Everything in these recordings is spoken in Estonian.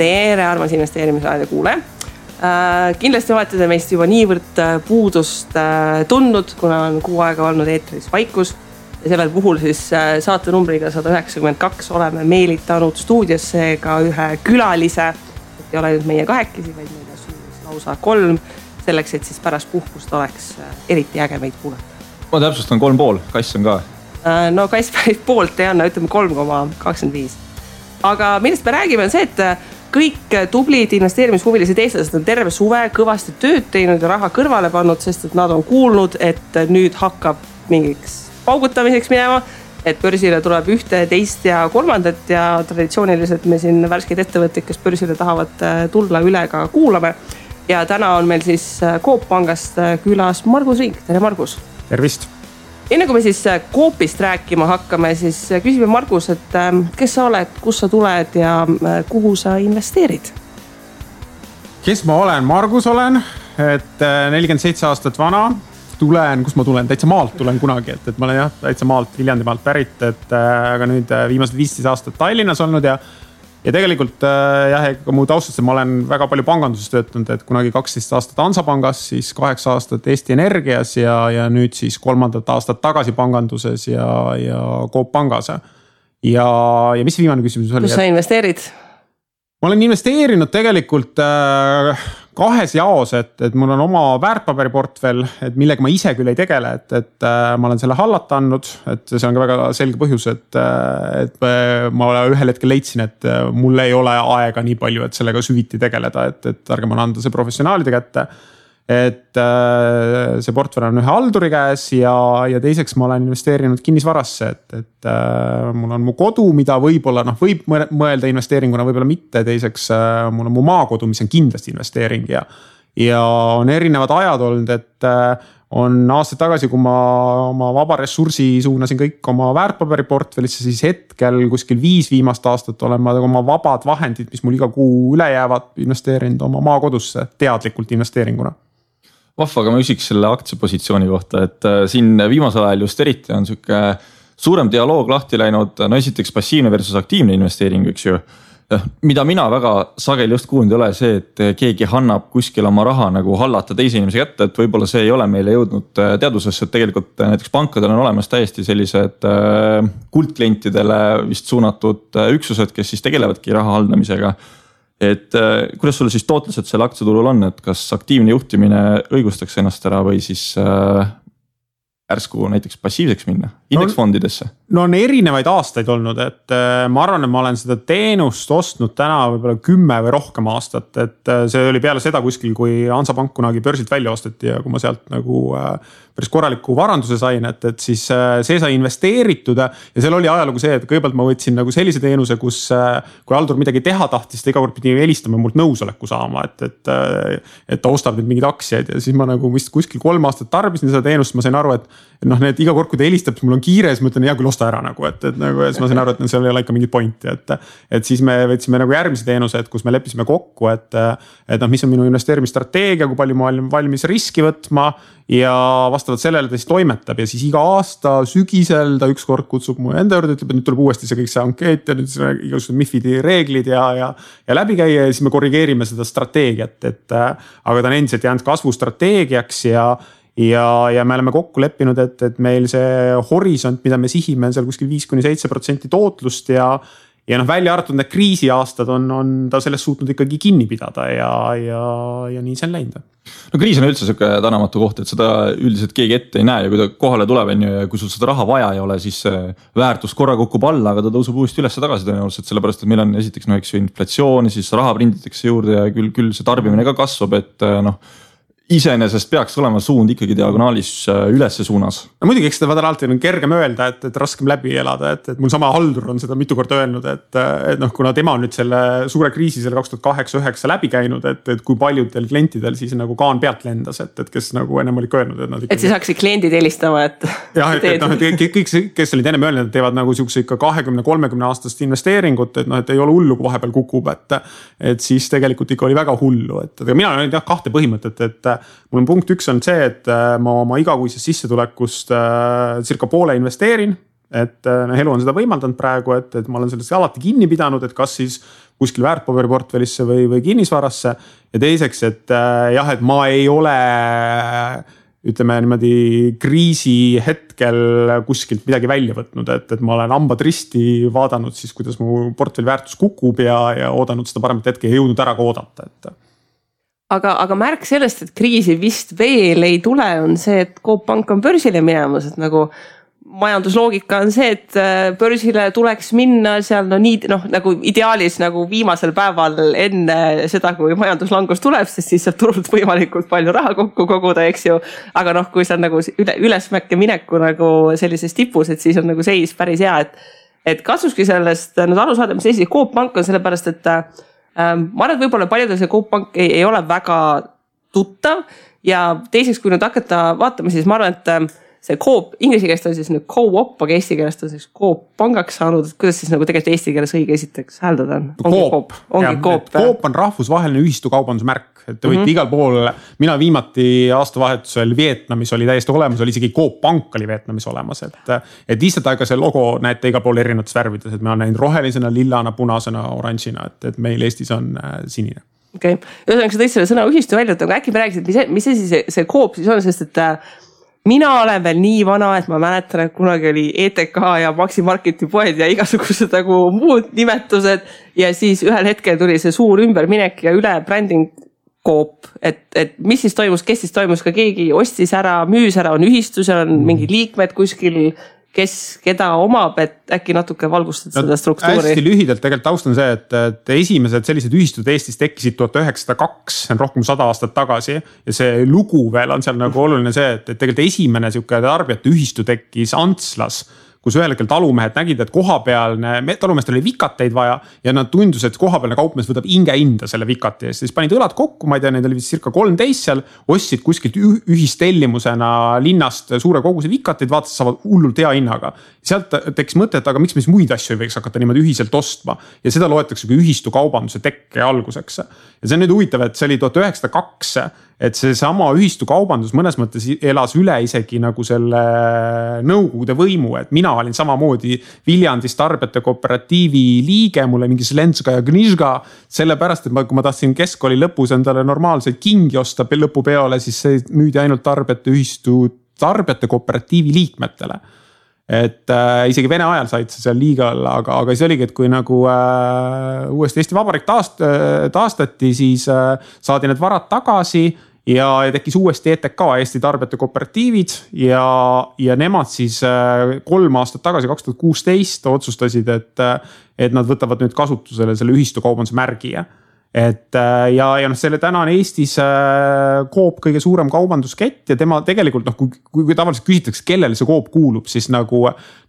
Tere, armas investeerimisraadio kuule. Kindlasti olete te meist juba niivõrd puudust tundnud, kuna on 6 aega olnud eetris vaikus. Ja sellel puhul siis saate numbriga 192 oleme meelitanud stuudiosse ka ühe külalise. Et ei ole nüüd meie 2, vaid meile lausa 3, selleks, et siis pärast puhkust oleks eriti äge meid kuulata. Ma täpsustan 3,5, Kass on ka. No Kass päris poolt ei anna, ütleme 3,25. Aga millest me räägime on see, et kõik tublid investeerimishuvilised eestlased on terve suve kõvasti tööd teinud ja raha kõrvale pannud, sest et nad on kuulnud, et nüüd hakkab mingiks paugutamiseks minema, et börsile tuleb 1, 2 ja 3 ja traditsiooniliselt me siin värskeid ettevõtteid, kes börsile tahavad tulla üle ka kuulame. Ja täna on meil siis Coop Pangast külas Margus Rink. Tere Margus! Tervist! Enne kui me siis Coopist rääkima hakkame, siis küsime Margus, et kes sa oled, kus sa tuled ja kuhu sa investeerid? Kes ma olen? Margus olen, et 47 aastat vana. Kus ma tulen? Täitsa maalt tulen kunagi, et ma olen täitsa maalt, Viljandimaalt pärit, aga nüüd viimased 15 aastat Tallinnas olnud ja tegelikult mu taustast ma olen väga palju panganduses töötanud, et kunagi 12 aastat Hansapangas, siis 8 aastat Eesti Energias ja nüüd siis 3. aastat tagasi panganduses ja Coop Pangas. Ja mis viimane küsimus oli? Kus sa investeerid? Ma olen investeerinud tegelikult 2 jaos, et mul on oma väärtpaberiportfell, et millega ma ise küll ei tegele, et ma olen selle hallata andnud, et see on ka väga selge põhjus, et ma ühel hetkel leidsin, et mul ei ole aega nii palju, et sellega süviti tegeleda, et ärge ma anda see professionaalide kätte. Et see portfell on ühe halduri käes ja teiseks ma olen investeerinud kinnisvarasse, et mul on mu kodu, mida võib-olla võib mõelda investeeringuna, võib-olla mitte. Teiseks mul on mu maakodu, mis on kindlasti investeering ja on erinevad ajad olnud, et on aastaid tagasi, kui ma oma vaba ressursi suunasin kõik oma väärtpaberiportfellisse, siis hetkel kuskil 5 viimast aastat olen ma oma vabad vahendid, mis mul iga kuu üle jäävad, investeerinud oma maakodusse teadlikult investeeringuna. Vahva, aga ma küsiks selle aktsiapositsiooni kohta, et siin viimasel ajal just eriti on siuke suurem dialoog lahti läinud, no esiteks passiivne versus aktiivne investeering, üks ju. Mida mina väga sageli just kuulnud ei ole see, et keegi annab kuskil oma raha nagu hallata teise inimese kätte, et võib-olla see ei ole meile jõudnud teadusesse, et tegelikult näiteks pankadel on olemas täiesti sellised kuldklientidele vist suunatud üksused, kes siis tegelevadki raha haldamisega. Et kuidas sulle siis tootlused selle aktsiaturul on, et kas aktiivne juhtimine õigustaks ennast ära või siis ärsku näiteks passiivseks minna indeksfondidesse? No on erinevaid aastaid olnud, et ma arvan, et ma olen seda teenust ostnud täna võib-olla 10 või rohkem aastat, et see oli peale seda kuskil, kui Hansapank kunagi börsilt välja osteti ja kui ma sealt nagu päris korraliku varanduse sain, et siis see sai investeeritud ja seal oli ajalugu see, et kõigepealt ma võtsin nagu sellise teenuse, kus kui haldur midagi teha tahtis, ta iga kord pidi helistama mult nõusoleku saama, et ta ostab nüüd mingid aktsiaid ja siis ma nagu vist kuskil 3 aastat tarbisin seda teenust, ma sain aru, et need iga kord, kui ta helistab, siis mul on kiire, siis ma ütlen, hea küll osta ära nagu, et nagu siis ma sain aru, et seal ei ole ikka mingit pointi, et siis me võtsime nagu järgmise teenuse, et kus me leppisime kokku, et mis on minu investeerimisstrateegia, kui palju ma olen valmis riski võtma ja vastavalt sellele ta siis toimetab ja siis iga aasta sügisel ta ükskord kutsub mu enda juurde, ütleb, et nüüd tuleb uuesti see kõik see ankeet ja nüüd igasugused MIFID-i reeglid ja läbi käia ja siis me korrigeerime seda strateegiat, aga ta on endiselt jäänud kasvustrateegiaks ja me oleme kokku leppinud, et meil see horisont, mida me sihime, on seal kuskil 5-7% tootlust ja välja arvatud need kriisiaastad on ta sellest suutnud ikkagi kinni pidada ja nii see on läinud. No kriis on üldse siuke tänamatu koht, et seda üldiselt keegi ette ei näe ja kui ta kohale tuleb ja kui sul seda raha vaja ei ole, siis väärtus korra kukub alla, aga ta tõuseb uuesti üles tagasi tõenäoliselt, sellepärast et meil on esiteks inflatsioon, siis raha prinditakse juurde ja küll see tarbimine ka kasvab, et iseenesest peaks olema suund ikkagi diagonaalis ülesse suunas. No muidugi, eks seda alati on kergem öelda, et raskem läbi elada, et mul sama haldur on seda mitu korda öelnud, et kuna tema on nüüd selle suure kriisi selle 2008-2009 läbi käinud, et kui paljudel klientidel siis nagu kaan pealt lendas, et kes nagu ennem oli öelnud, et nad ikkagi... Et siis hakkasid kliendid helistama, et... Jah, et kõik, kes olid ennem öelnud, et teevad nagu siukse ikka 20-30 aastast investeeringut, et ei ole hullu, kui vahepeal kukub, et siis tegelikult ikka oli väga hullu, et mina olen 2 põhimõtet, et mul on punkt 1 on see, et ma oma igakuisest sissetulekust circa poole investeerin, et elu on seda võimaldanud praegu, et ma olen sellest alati kinni pidanud, et kas siis kuskil väärtpaberiportfellisse või kinnisvarasse. Ja teiseks, et jah, et ma ei ole ütleme niimoodi kriisi hetkel kuskilt midagi välja võtnud, et ma olen hambad risti vaadanud siis, kuidas mu portfelli väärtus kukub ja oodanud seda paremat hetke ja jõudnud ära ka oodata, et. Aga märk sellest, et kriisi vist veel ei tule, on see, et Coop Pank on börsile minemas, et nagu majandusloogika on see, et börsile tuleks minna seal nagu ideaalis nagu viimasel päeval enne seda, kui majanduslangus tuleb, sest siis saab turult võimalikult palju raha kokku koguda, eks ju. Aga kui see on nagu ülesmäkke mineku nagu sellises tipus, et siis on nagu seis päris hea, et kasuski sellest nüüd aru saada, mis seis Coop Pank on sellepärast, et ma arvan, et võib-olla paljudel see Coop Pank ei ole väga tuttav ja teiseks, kui nüüd hakata vaatama, siis ma arvan, et see Coop, inglise keelest on siis nüüd Co-op, aga eesti keelest on siis Coop pangaks saanud, et kuidas siis nagu tegelikult eesti keeles õige esiteks hääldada on? Coop. Coop on rahvusvaheline ühistukaubandusmärk, et te võite igal pool, mina viimati aastavahetusel Vietnamis oli täiesti olemas, oli isegi Coop Pank oli Vietnamis olemas, et lihtsalt aega see logo näete igal pool erinevates värvides, et me olen näinud rohelisena, lillana, punasena, oranžina, et meil Eestis on sinine. Okei, ühesõnaga sa tõid selle sõna ühistu välja, aga äkki me räägisid, mis see Coop siis on, sest et mina olen veel nii vana, et ma mäletan, et kunagi oli ETK ja Maxi Marketi poed ja igasugused nagu muud nimetused ja siis ühel hetkel tuli see suur ümberminek ja üle bränding Coop, et mis siis toimus, kes siis toimus, ka keegi ostis ära, müüs ära, on ühistus, on mingid liikmed kuskil, kes keda omab, et äkki natuke valgustad seda struktuuri. Hästi lühidalt tegelikult taust on see, et esimesed sellised ühistud Eestis tekkisid 1902, see on rohkem 100 aastat tagasi ja see lugu veel on seal nagu oluline see, et tegelikult esimene siuke tarbijate ühistu tekkis Antslas, kus ühel hetkel talumehed nägid, et kohapealne, talumeestel oli vikateid vaja ja nad tundus, et kohapealne kaupmees võtab hinda selle vikati eest. Siis panid õlad kokku, ma ei tea, neid oli vist circa 13 seal, ostsid kuskilt ühistellimusena linnast suure koguse vikateid, vaatasid, saavad hullult hea hinnaga. Sealt tekkis mõte, et aga miks me siis muid asju ei võiks hakata niimoodi ühiselt ostma ja seda loetakse kui ühistu kaubanduse tekke alguseks. Ja see on nüüd huvitav, et see oli 1902, et see sama ühistu kaubandus mõnes mõttes elas üle isegi nagu selle nõukogude võimu, et mina olin samamoodi Viljandis tarbijate kooperatiivi liige, mulle mingi Slenska ja Gnižga, sellepärast, et kui ma tahtsin keskkooli lõpus endale normaalseid kingi osta lõpupeole, siis see müüdi ainult tarbijate kooperatiivi liikmetele. Et isegi Vene ajal said see seal liiga olla, aga siis oligi, et kui nagu uuesti Eesti Vabariik taastati, siis saadi need varad tagasi ja tekkis uuesti ETK, Eesti tarbijate kooperatiivid ja nemad siis 3 aastat tagasi, 2016 otsustasid, et nad võtavad nüüd kasutusele selle ühistukaubanduse märgi. Et ja selle täna on Eestis Coop kõige suurem kaubanduskett ja tema tegelikult kui tavaliselt küsitakse, kellele see Coop kuulub, siis nagu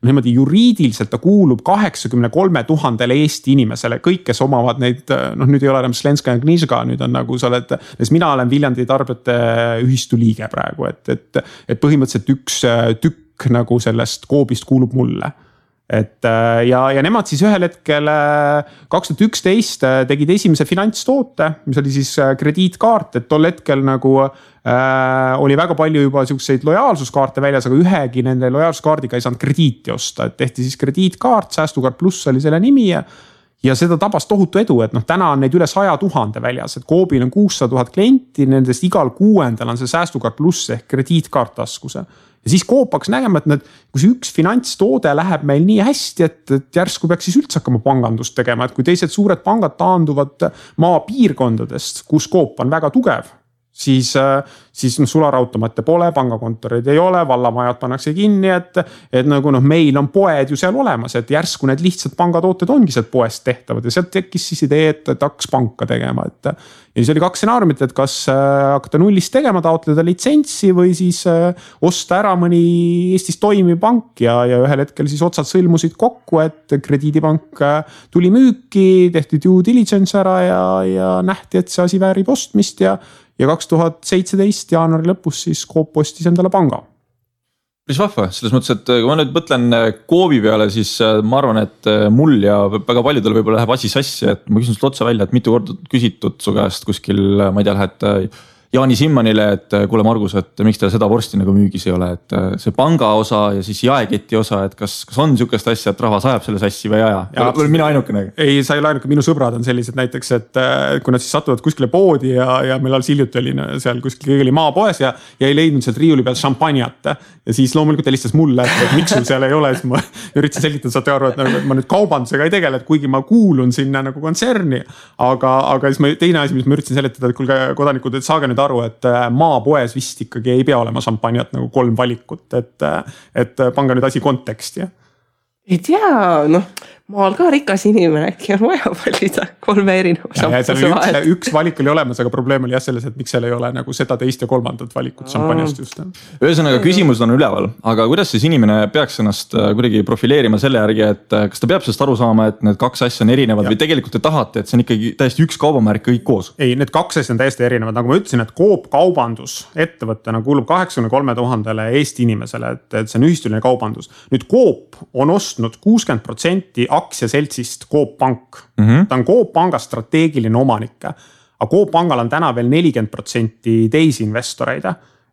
niimoodi juriidiliselt ta kuulub 83 000 Eesti inimesele, kõik, kes omavad neid, nüüd ei ole enam Slenska ja Gnižga, nüüd on nagu sa oled, mina olen Viljandi tarbijate ühistu liige praegu, et põhimõtteliselt üks tükk nagu sellest Coopist kuulub mulle. Et ja nemad siis ühel hetkel 2011 tegid esimese finantstoote, mis oli siis krediitkaart, et tol hetkel nagu oli väga palju juba siukseid lojaalsuskaarte väljas, aga ühegi nende lojaalsuskaardiga ei saanud krediiti osta, et tehti siis krediitkaart, Säästukaart Pluss oli selle nimi ja seda tabas tohutu edu, et täna on neid üle 100 000 väljas, et Coopil on 600 000 klienti, nendest igal 6. on see Säästukaart Pluss ehk krediitkaart taskuse. Ja siis Coop hakkas nägema, et kui see üks finantstoode läheb meil nii hästi, et järsku peaks siis üldse hakkama pangandust tegema, et kui teised suured pangad taanduvad maapiirkondadest, kus Coop on väga tugev, siis sularautomaate pole, pangakontoreid ei ole, vallamajad pannakse kinni, et nagu meil on poed ju seal olemas, et järsku need lihtsalt pangatooted ongi sealt poest tehtavad ja sealt tekkis siis idee, et hakkas panka tegema, ja siis oli 2 stsenaariumit, et kas hakata nullist tegema, taotleda litsentsi või siis osta ära mõni Eestis toimiv pank ja ühel hetkel siis otsad sõlmusid kokku, et krediidipank tuli müüki, tehti due diligence ära ja nähti, et see asi väärib ostmist ja 2017 jaanuari lõpus siis Coop ostis endale panga. Päris vahva, selles mõttes, et kui ma nüüd mõtlen Coopi peale, siis ma arvan, et mul ja väga paljudel võib-olla läheb asi sassi, et ma küsin sult otsa välja, et mitu korda küsitud su käest kuskil, ma ei tea, lähed Jaani Simmanile, et kuule Margus, et miks teil seda vorsti nagu müügis ei ole, et see panga osa ja siis jaeketi osa, et kas on niisugust asja, et rahvas ajab selle sassi või ei aja? Või mina ainukene? Ei, sa ei ole ainuke, minu sõbrad on sellised näiteks, et kui nad siis satuvad kuskile poodi ja meil alles hiljuti oli seal kuskil kõige oli maapoes ja ei leidnud sealt riiuli peal šampanjat. Ja siis loomulikult helistas mulle, et miks sul seal ei ole, siis ma üritasin selgitada, saate aru, et ma nüüd kaubandusega ei tegele, et kuigi ma kuulun sinna nagu kontserni, aga siis teine asi, mis ma üritasin seletada, et kuulge kodanikud, et saage nüüd aru, et maapoes vist ikkagi ei pea olema šampanjat nagu 3 valikut, et pange nüüd asi konteksti. Ei tea, maal ka rikas inimene, äkki on vaja valida 3 erineva šampuse vahel. Üks valik oli olemas, aga probleem oli jah selles, et miks seal ei ole nagu seda teist ja 3. valikut šampanjast just. Ühesõnaga küsimus on üleval, aga kuidas siis inimene peaks ennast kuidagi profileerima selle järgi, et kas ta peab sellest aru saama, et need 2 asja on erinevad või tegelikult te tahate, et see on ikkagi täiesti üks kaubamärk kõik koos? Ei, need 2 asja on täiesti erinevad, nagu ma ütlesin, et Coop kaubandus ettevõttena kuulub 83 000 Eesti inimesele, et see on ühistuline kaubandus. Nüüd Coop on ostnud 60% aktsiaseltsist Coop Pank. Ta on Coop Panga strateegiline omanik. Aga Coop Pangal on täna veel 40% teisi investoreid,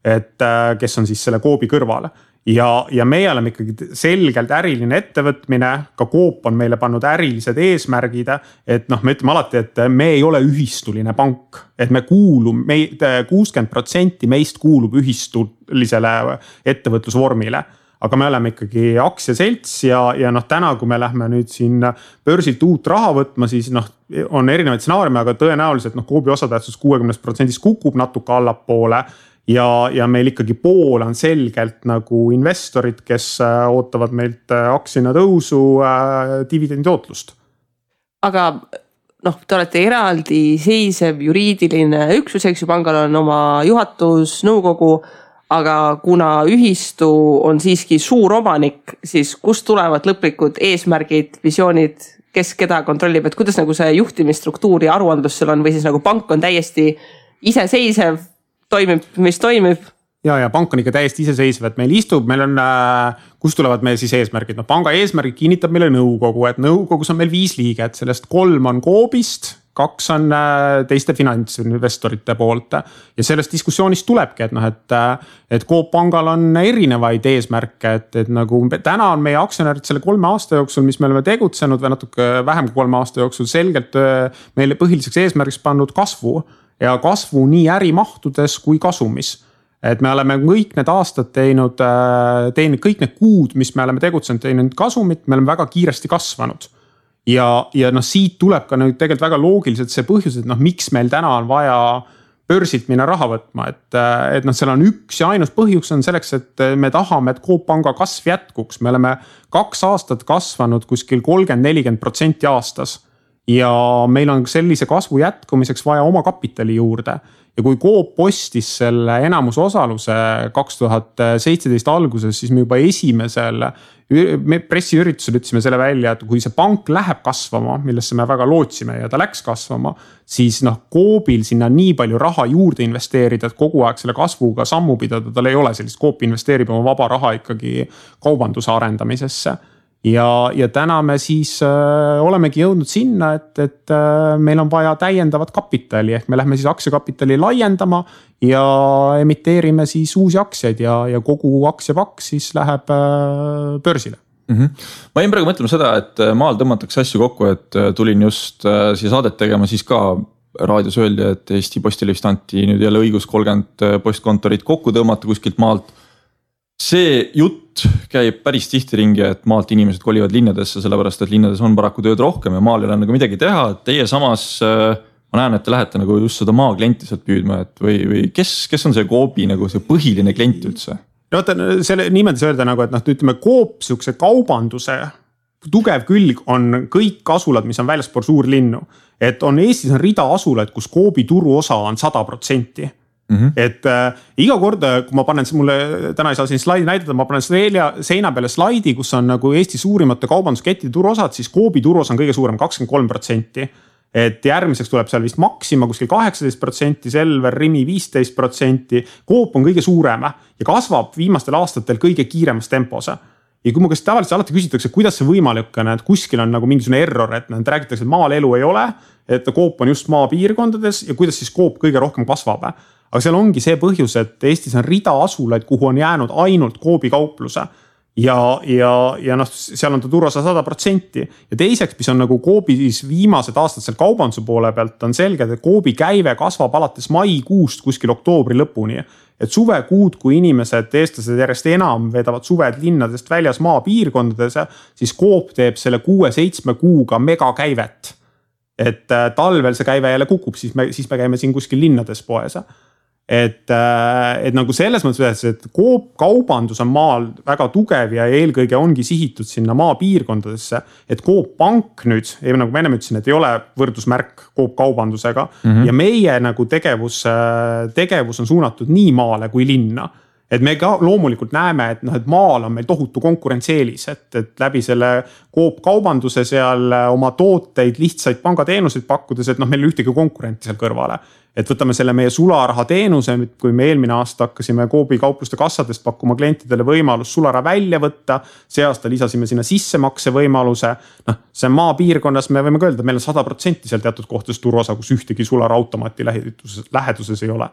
et kes on siis selle Coopi kõrval. Ja meie oleme ikkagi selgelt äriline ettevõtmine, ka Coop on meile pannud ärilised eesmärgid, et me ütleme alati, et me ei ole ühistuline pank, et me kuulume, 60% meist kuulub ühistulisele ettevõtlusvormile. Aga me oleme ikkagi aktsiaselts ja täna, kui me lähme nüüd siin börsilt uut raha võtma, siis on erinevaid stsenaariume, aga tõenäoliselt Coopi osatähtsus 60% kukub natuke allapoole ja meil ikkagi pool on selgelt nagu investorid, kes ootavad meilt aktsiana tõusu, dividendi tootlust. Aga te olete eraldi seisev juriidiline üksus, eks ju, pangal on oma juhatus, nõukogu, aga kuna ühistu on siiski suur omanik, siis kust tulevad lõplikud eesmärgid, visioonid, kes keda kontrollib, et kuidas nagu see juhtimisstruktuur ja aruandlus seal on või siis nagu pank on täiesti iseseisev, toimib, mis toimib? Ja pank on ikka täiesti iseseisev, et meil istub, meil on, kust tulevad meie siis eesmärgid? Panga eesmärgid kinnitab meile nõukogu, et nõukogus on meil 5 liiget, sellest 3 on Coopist, 2 on teiste finantsinvestorite poolt ja sellest diskussioonist tulebki, et Coop Pangal on erinevaid eesmärke, et nagu täna on meie aktsionärid selle 3 aasta jooksul, mis me oleme tegutsenud või natuke vähem kui 3 aasta jooksul selgelt meile põhiliseks eesmärgiks pannud kasvu ja kasvu nii ärimahtudes kui kasumis. Et me oleme kõik need aastad teinud kõik need kuud, mis me oleme tegutsenud, teinud kasumit, me oleme väga kiiresti kasvanud. Ja siit tuleb ka nüüd tegelikult väga loogiliselt see põhjus, et miks meil täna on vaja börsilt minna raha võtma, et seal on üks ja ainus põhjus on selleks, et me tahame, et Coop Panga kasv jätkuks. Me oleme 2 aastat kasvanud kuskil 30-40% aastas ja meil on sellise kasvu jätkumiseks vaja oma kapitali juurde. Ja kui Coop postis selle enamusosaluse 2017 alguses, siis me juba esimesel pressiüritusel ütlesime selle välja, et kui see pank läheb kasvama, millesse me väga lootsime ja ta läks kasvama, siis Coobil sinna nii palju raha juurde investeerida, et kogu aeg selle kasvuga sammu pidada, tal ei ole sellist. Coop investeerib oma vaba raha ikkagi kaubanduse arendamisesse. Ja täna me siis olemegi jõudnud sinna, et meil on vaja täiendavat kapitali, ehk me lähme siis aktsiakapitali laiendama ja emiteerime siis uusi aktsiaid ja kogu aktsiapakk siis läheb börsile. Ma jäin praegu mõtlema seda, et maal tõmmatakse asju kokku, et tulin just siia saadet tegema, siis ka raadios öeldi, et Eesti Postile vist anti nüüd jälle õigus 30 postkontorit kokku tõmmata kuskilt maalt. See jutt käib päris tihti ringi, et maalt inimesed kolivad linnadesse, sellepärast, et linnades on paraku tööd rohkem ja maal ei ole nagu midagi teha. Teie samas, ma näen, et te lähete nagu just seda maaklienti sealt püüdma, et või kes on see Coopi nagu see põhiline klient üldse? Selle niimoodi öelda nagu, et ütleme Coop sihukese kaubanduse tugev külg on kõik asulad, mis on väljaspool suurlinnu. Et on Eestis on rida asulaid, kus Coopi turuosa on 100%. Et iga kord, kui ma panen, mulle täna ei saa siin slaidi näidata, ma panen seina peale slaidi, kus on nagu Eesti suurimate kaubanduskettide turuosad, siis Coopi turuosa on kõige suurem 23%. Et järgmiseks tuleb seal vist Maxima kuskil 18%, Selver, Rimi 15%, Coop on kõige suurem ja kasvab viimastel aastatel kõige kiiremas tempos. Ja kui mu käest tavaliselt alati küsitakse, kuidas see võimalik on, et kuskil on nagu mingisugune error, et räägitakse, et maal elu ei ole, et Coop on just maapiirkondades ja kuidas siis Coop kõige rohkem kasvab. aga seal ongi see põhjus, et Eestis on rida asulaid, kuhu on jäänud ainult Coopi kaupluse. Ja noh, seal on ta turuosa 100%. Ja teiseks, mis on nagu Coopis viimased aastad seal kaubanduse poole pealt, on selge, et Coopi käive kasvab alates maikuust kuskil oktoobri lõpuni. Et suvekuud, kui inimesed, eestlased järjest enam vedavad suved linnadest väljas maapiirkondades, siis Coop teeb selle 6-7 kuuga megakäivet. Et talvel see käive jälle kukub, siis me käime siin kuskil linnades poes. Et nagu selles mõttes, et kaubandus on maal väga tugev ja eelkõige ongi sihitud sinna maapiirkondadesse, et Coop Pank nüüd, nagu ma enne ütlesin, et ei ole võrdusmärk Coop kaubandusega ja meie nagu tegevus on suunatud nii maale kui linna. Et me ka loomulikult näeme, et maal on meil tohutu konkurentseelis, et läbi selle Coop kaubanduse seal oma tooteid, lihtsaid pangateenuseid pakkudes, et meil ühtegi konkurenti seal kõrvale. Et võtame selle meie sularaha teenuse, kui me eelmine aasta hakkasime Coopi kaupluste kassadest pakkuma klientidele võimalus sulara välja võtta, see aasta lisasime sinna sissemakse võimaluse. See maapiirkonnas me võime öelda, meil on 100% seal teatud kohtades turuosa, kus ühtegi sulara automaati läheduses ei ole.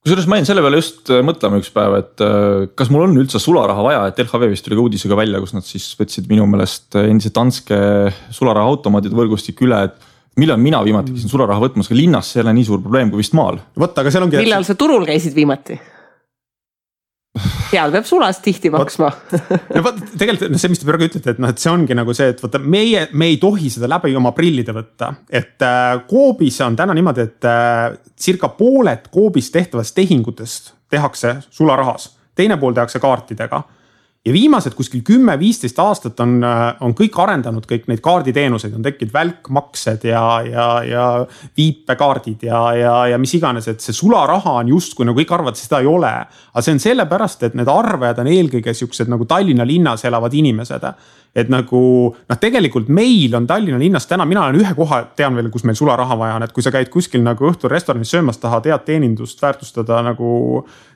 Kusjuures ma jäin selle peale just mõtlema üks päev, et kas mul on üldse sularaha vaja, et LHV vist tuli ka uudisega välja, kus nad siis võtsid minu meelest endise Danske sularaha automaatide võrgustik üle, et millal mina viimati käisin sularaha võtmas, ka linnas see ei ole nii suur probleem kui vist maal. Aga seal ongi... Millal sa turul käisid viimati? Seal peab sulast tihti maksma. Tegelikult see, mis te praegu ütlete, et see ongi nagu see, et me ei tohi seda läbi oma prillide võtta. Et Coopis on täna niimoodi, et circa pooled Coopis tehtavast tehingutest tehakse sularahas. Teine pool tehakse kaartidega. Ja viimased kuskil 10-15 aastat on kõik arendanud kõik neid kaarditeenuseid, on tekkinud välkmaksed ja viipekaardid ja mis iganes, et see sularaha on just, kui nagu kõik arvad, seda ei ole. Aga see on sellepärast, et need arvajad on eelkõige siuksed nagu Tallinna linnas elavad inimesed. Et nagu, tegelikult meil on Tallinna linnas täna, mina olen ühe koha, tean veel, kus meil sularaha vaja on, et kui sa käid kuskil nagu õhtul restoranis söömas, tahad head teenindust väärtustada nagu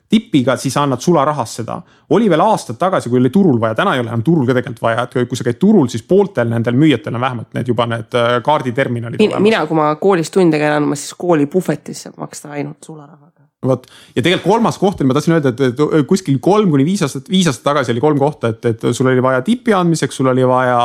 tipiga, siis annad sularahas seda. Oli veel aastad tagasi, kui oli turul vaja, täna ei ole enam turul ka tegelikult vaja, et kui sa käid turul, siis pooltel nendel müüjatel on vähemalt need juba need kaarditerminalid olemas. Mina, kui ma koolis tunde käin, ma siis kooli puhvetis saab maksta ainult sularahaga. Ja tegelikult kolmas koht, ma tahtsin öelda, et kuskil 3-5 aastat tagasi oli 3 kohta, et sul oli vaja tipi andmiseks, sul oli vaja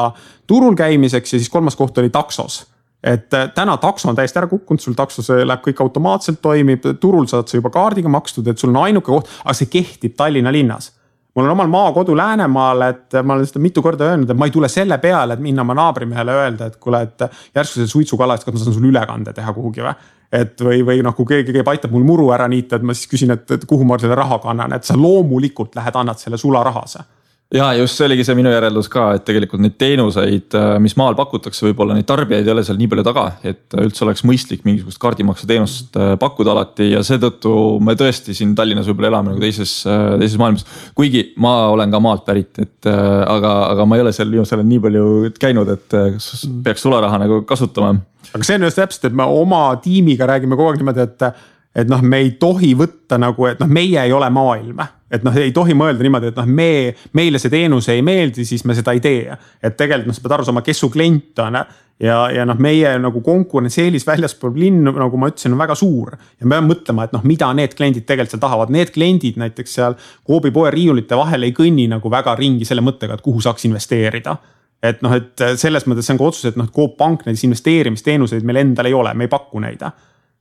turul käimiseks ja siis kolmas koht oli taksos. Et täna takso on täiesti ära kukkunud, sul taksos läheb kõik automaatselt toimib, turul saad sa juba kaardiga makstud, et sul on ainuke koht, aga see kehtib Tallinna linnas. Mul on omal maakodu Läänemaal, et ma olen seda mitu korda öelnud, et ma ei tule selle peale, et minna oma naabrimehele öelda, et kuule, et järsku see suitsukala, et kas ma saan sul ülekande teha kuhugi või? Et või kui keegi aitab mul muru ära niita, et ma siis küsin, et kuhu ma selle raha kannan, et sa loomulikult lähed, annad selle sularahase. Ja just see oligi see minu järeldus ka, et tegelikult neid teenuseid, mis maal pakutakse, võib-olla neid tarbijaid ei ole seal nii palju taga, et üldse oleks mõistlik mingisugust kaardimakse teenust pakkuda alati ja seetõttu me tõesti siin Tallinnas võib-olla elame nagu teises maailmas. Kuigi ma olen ka maalt pärit, et aga ma ei ole seal viimasel nii palju käinud, et peaks sularaha nagu kasutama. Aga see on just täpselt, et me oma tiimiga räägime kogu aeg niimoodi, et me ei tohi võtta nagu, et meie ei ole maailm. Et ei tohi mõelda niimoodi, et meile see teenus ei meeldi, siis me seda ei tee. Et tegelikult sa pead aru saama, kes su klient on ja meie nagu konkurentseelis väljaspool linn, nagu ma ütlesin, on väga suur. Ja me peame mõtlema, et mida need kliendid tegelikult seal tahavad. Need kliendid näiteks seal Coopi poe riiulite vahel ei kõnni nagu väga ringi selle mõttega, et kuhu saaks investeerida. Et selles mõttes see on ka otsus, et Coop Pank näiteks investeerimisteenuseid meil endal ei ole, me ei paku neid.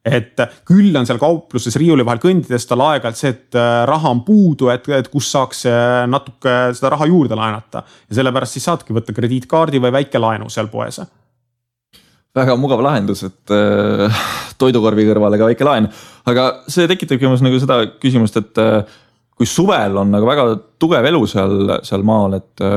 Et küll on seal kaupluses riiuli vahel kõndides tal aeg-ajalt see, et raha on puudu, et kus saaks natuke seda raha juurde laenata. Ja sellepärast siis saadki võtta krediitkaardi või väike laenu seal poes. Väga mugav lahendus, et toidukorvi kõrvale ka väike laen. Aga see tekitab nagu seda küsimust, et kui suvel on nagu väga tugev elu seal maal, et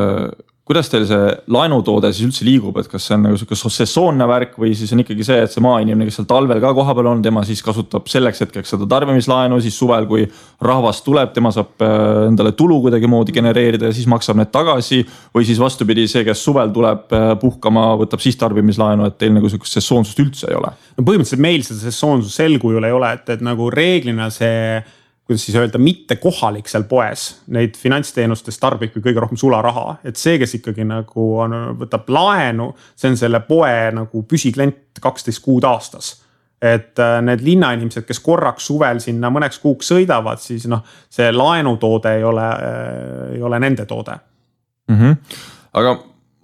kuidas teil see laenutoode siis üldse liigub, et kas see on nagu sesoonne värk või siis on ikkagi see, et see maainimene, kes seal talvel ka koha peal on, tema siis kasutab selleks hetkeks seda tarbimislaenu, siis suvel, kui rahvas tuleb, tema saab endale tulu kuidagi moodi genereerida ja siis maksab need tagasi või siis vastupidi see, kes suvel tuleb puhkama, võtab siis tarbimislaenu, et teil nagu sesoonsust üldse ei ole? No põhimõtteliselt meil seda sesoonsust sel kujul ei ole, et nagu reeglina see kuidas siis öelda, mitte kohalik seal poes, neid finantsteenustes tarbib kõige rohkem sularaha, et see, kes ikkagi nagu võtab laenu, see on selle poe nagu püsiklient 12 kuud aastas. et need linnainimesed, kes korraks suvel sinna mõneks kuuks sõidavad, siis noh, see laenutoode ei ole nende toode. Aga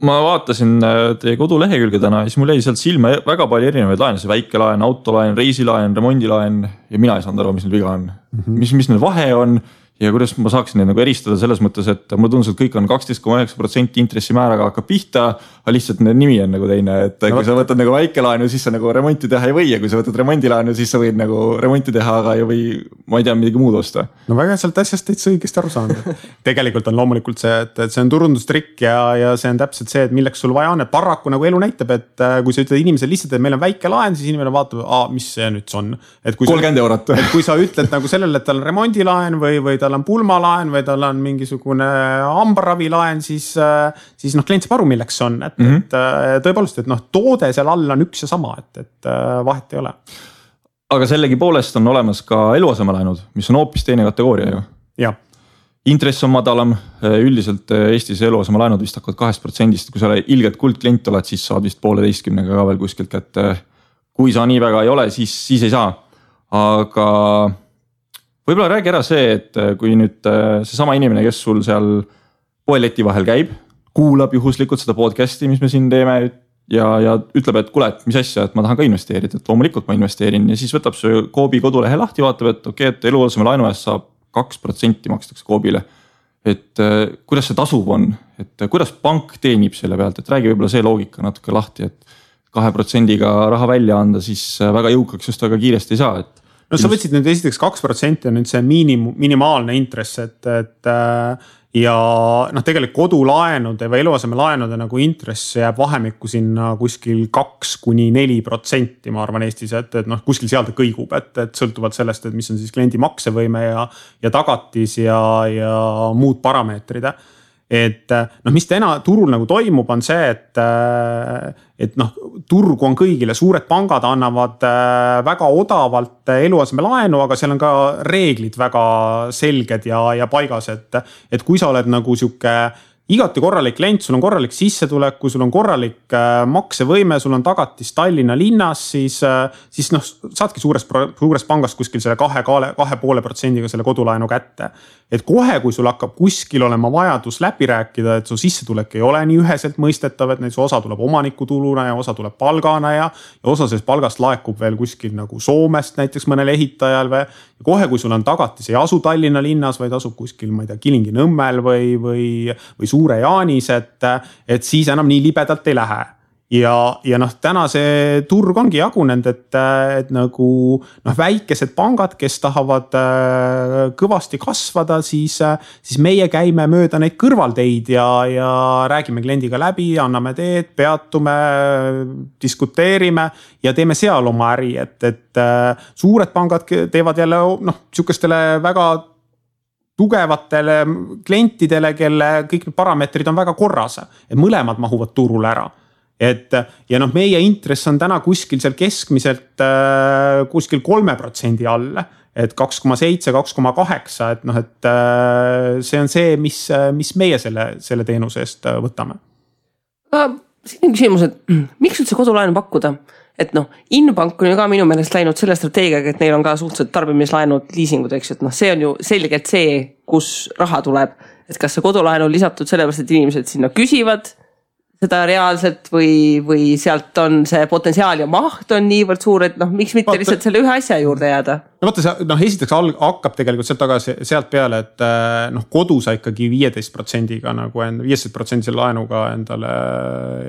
ma vaatasin teie kodulehekülge täna, siis mul jäi sealt silma väga palju erinevaid laene, see väikelaen, autolaen, reisilaen, remondilaen ja mina ei saanud aru, mis neil viga on. Mis neil vahe on ja kuidas ma saaksin neid nagu eristada selles mõttes, et mulle tundus, et kõik on 12,9% intressimääraga hakkab pihta, aga lihtsalt nimi on nagu teine, et kui sa võtad nagu väikelaenu, siis sa nagu remonti teha ei või ja kui sa võtad remondilaenu, siis sa võid nagu remonti teha, aga ei või, ma ei tea, midagi muud osta. No väga sealt asjast täitsa õigesti aru saanud. Tegelikult on loomulikult see, et see on turundustrikk ja see on täpselt see, et milleks sul vaja on, et paraku nagu elu näitab, et kui sa ütled inimesele lihtsalt, et meil on väike laen, siis inimene vaatab, mis see nüüd on. 30 eurot. Et kui sa ütled nagu sellele, et tal on remondilaen või tal on pulmalaen või tal on mingisugune hambaravilaen, siis noh, klient saab aru, milleks see on. Et tõepoolest, et noh, toode seal all on üks ja sama, et vahet ei ole. Aga sellegi poolest on olemas ka eluasemelaenud, mis on hoopis teine kategooria ju. Ja. Intress on madalam, üldiselt Eestis eluasemelaenud vist hakkavad 2%, kui sa ilgelt kuldklient oled, siis saad vist 1,5% ka veel kuskilt, et kui sa nii väga ei ole, siis ei saa. Aga võib-olla räägi ära see, et kui nüüd seesama inimene, kes sul seal poeleti vahel käib, kuulab juhuslikult seda podcasti, mis me siin teeme ja ütleb, et kuule, et mis asja, et ma tahan ka investeerida, et loomulikult ma investeerin ja siis võtab see Coopi kodulehe lahti, vaatab, et okei, et eluaseme laenu eest saab 2% makstakse Coopile. Et kuidas see tasub on, et kuidas pank teenib selle pealt, et räägi võib-olla see loogika natuke lahti, et 2%-ga raha välja anda, siis väga jõukaks just väga kiiresti ei saa, et no sa võtsid nüüd esiteks 2% on nüüd see minimaalne intress, et ja noh, tegelikult kodulaenude või eluasemelaenude nagu intress jääb vahemikku sinna kuskil 2–4%, ma arvan Eestis, et noh, kuskil seal ta kõigub, et sõltuvalt sellest, et mis on siis kliendi maksevõime ja tagatis ja muud parameetrid. Et noh, mis täna turul nagu toimub, on see, et noh, turg on kõigile, suured pangad annavad väga odavalt eluaseme laenu, aga seal on ka reeglid väga selged ja paigas, et kui sa oled nagu sihuke igati korralik klient, sul on korralik sissetulek, kui sul on korralik maksevõime, sul on tagatis Tallinna linnas, siis noh, saadki suures pangast kuskil selle 2,5%-ga selle kodulaenu kätte. Et kohe, kui sul hakkab kuskil olema vajadus läbi rääkida, et su sissetulek ei ole nii üheselt mõistetav, et näiteks osa tuleb omanikutuluna ja osa tuleb palgana ja osa sellest palgast laekub veel kuskil nagu Soomest näiteks mõnel ehitajal või kohe, kui sul on tagatis, ei asu Tallinna linnas, vaid asub kuskil, ma ei tea, Kilingi-Nõmmel või Suure Jaanis, et siis enam nii libedalt ei lähe. Ja noh, täna see turg ongi jagunenud, et nagu noh, väikesed pangad, kes tahavad kõvasti kasvada, siis meie käime mööda neid kõrvalteid ja räägime kliendiga läbi, anname teed, peatume, diskuteerime ja teeme seal oma äri, et suured pangad teevad jälle noh, sihukestele väga tugevatele klientidele, kelle kõik need parameetrid on väga korras, et mõlemad mahuvad turule ära. Ja noh, meie intress on täna kuskil seal keskmiselt kuskil 3% all, et 2,7, 2,8, et noh, et see on see, mis meie selle teenuse eest võtame. Siin on küsimus, et miks üldse kodulaenu pakkuda? Et noh, Inbank on ju ka minu meelest läinud selle strateegiaga, et neil on ka suhteliselt tarbimislaenud, liisingud, eks, et noh, see on ju selgelt see, kus raha tuleb. Et kas see kodulaenu on lisatud sellepärast, et inimesed sinna küsivad seda reaalselt või sealt on see potentsiaal ja maht on niivõrd suur, et noh, miks mitte lihtsalt selle ühe asja juurde jääda? No vaata, noh, esiteks hakkab tegelikult sealt peale, et noh, kodu sa ikkagi 15%-ga nagu 15% laenuga endale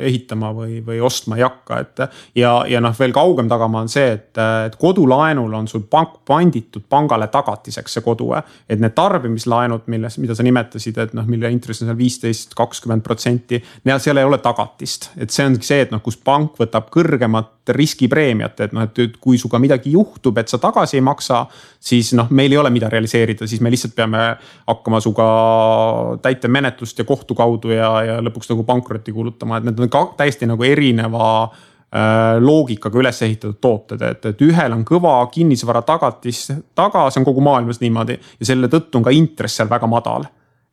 ehitama või ostma ei hakka, ja noh, veel kaugem tagama on see, et kodulaenul on sul pank panditud pangale tagatiseks see kodu, et need tarbimislaenud, mida sa nimetasid, et noh, mille intress on seal 15-20%, seal ei ole tagatist, et see ongi see, et noh, kus pank võtab kõrgemat riskipreemiat, et noh, et kui suga midagi juhtub, et sa tagasi ei maksa, siis noh, meil ei ole mida realiseerida, siis me lihtsalt peame hakkama suga täitemenetlust ja kohtu kaudu ja lõpuks nagu pankrotti kuulutama, et need on ka täiesti nagu erineva loogikaga üles ehitatud tooted, et ühel on kõva kinnisvara tagatis taga, see on kogu maailmas niimoodi ja selle tõttu on ka intress seal väga madal.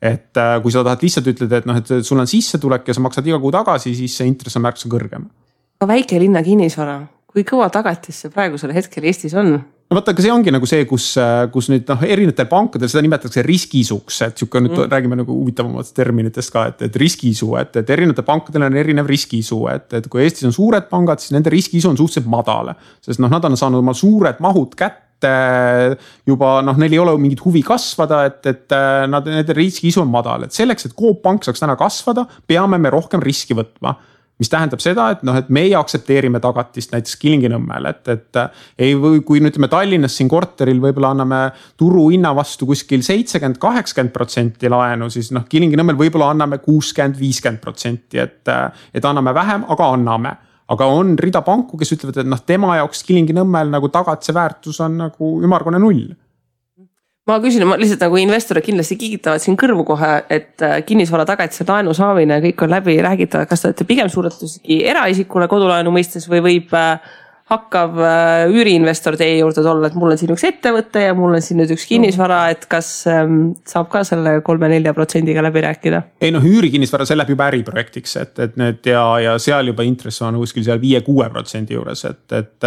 Et kui sa tahad lihtsalt ütleda, et noh, et sul on sissetulek ja sa maksad iga kuu tagasi, siis see intress on märksa kõrgem. Väike linna kinnisvara, kui kõva tagatis see praegusel hetkel Eestis on? No vaata, aga see ongi nagu see, kus nüüd erinevatel pankadel seda nimetatakse riskisuks, et siuke nüüd räägime nagu huvitavamatest terminitest ka, et riskiisu, et erinevatel pankadel on erinev riskiisu, et kui Eestis on suured pangad, siis nende riskiisu on suhteliselt madal, sest nad on saanud oma suured mahud kätte juba, neil ei ole mingit huvi kasvada, et nende riskiisu on madal, et selleks, et Coop Pank saaks täna kasvada, peame me rohkem riski võtma. Mis tähendab seda, et meie aktsepteerime tagatist näiteks Kilingi-Nõmmel, et kui nüüd me Tallinnas siin korteril võib-olla anname turu hinna vastu kuskil 70-80% laenu, siis Kilingi-Nõmmel võib-olla anname 60-50%, et anname vähem, aga anname. Aga on rida panku, kes ütlevad, et tema jaoks Kilingi-Nõmmel nagu tagatise väärtus on nagu ümmargune 0. Ma küsin, lihtsalt nagu investorid kindlasti kiigitavad siin kõrvu kohe, et kinnisvara tagatise laenu saamine kõik on läbi räägitavad. Kas te olete pigem suuretusegi eraisikule kodulaenu mõistes või võib hakkav üüriinvestor teie juurde tulla, et mul on siin üks ettevõte ja mul on siin nüüd üks kinnisvara, et kas saab ka selle 3-4%-ga läbi rääkida? Ei üürikinnisvara, see läheb juba äriprojektiks, et need ja seal juba intress on kuskil seal 5-6% juures, et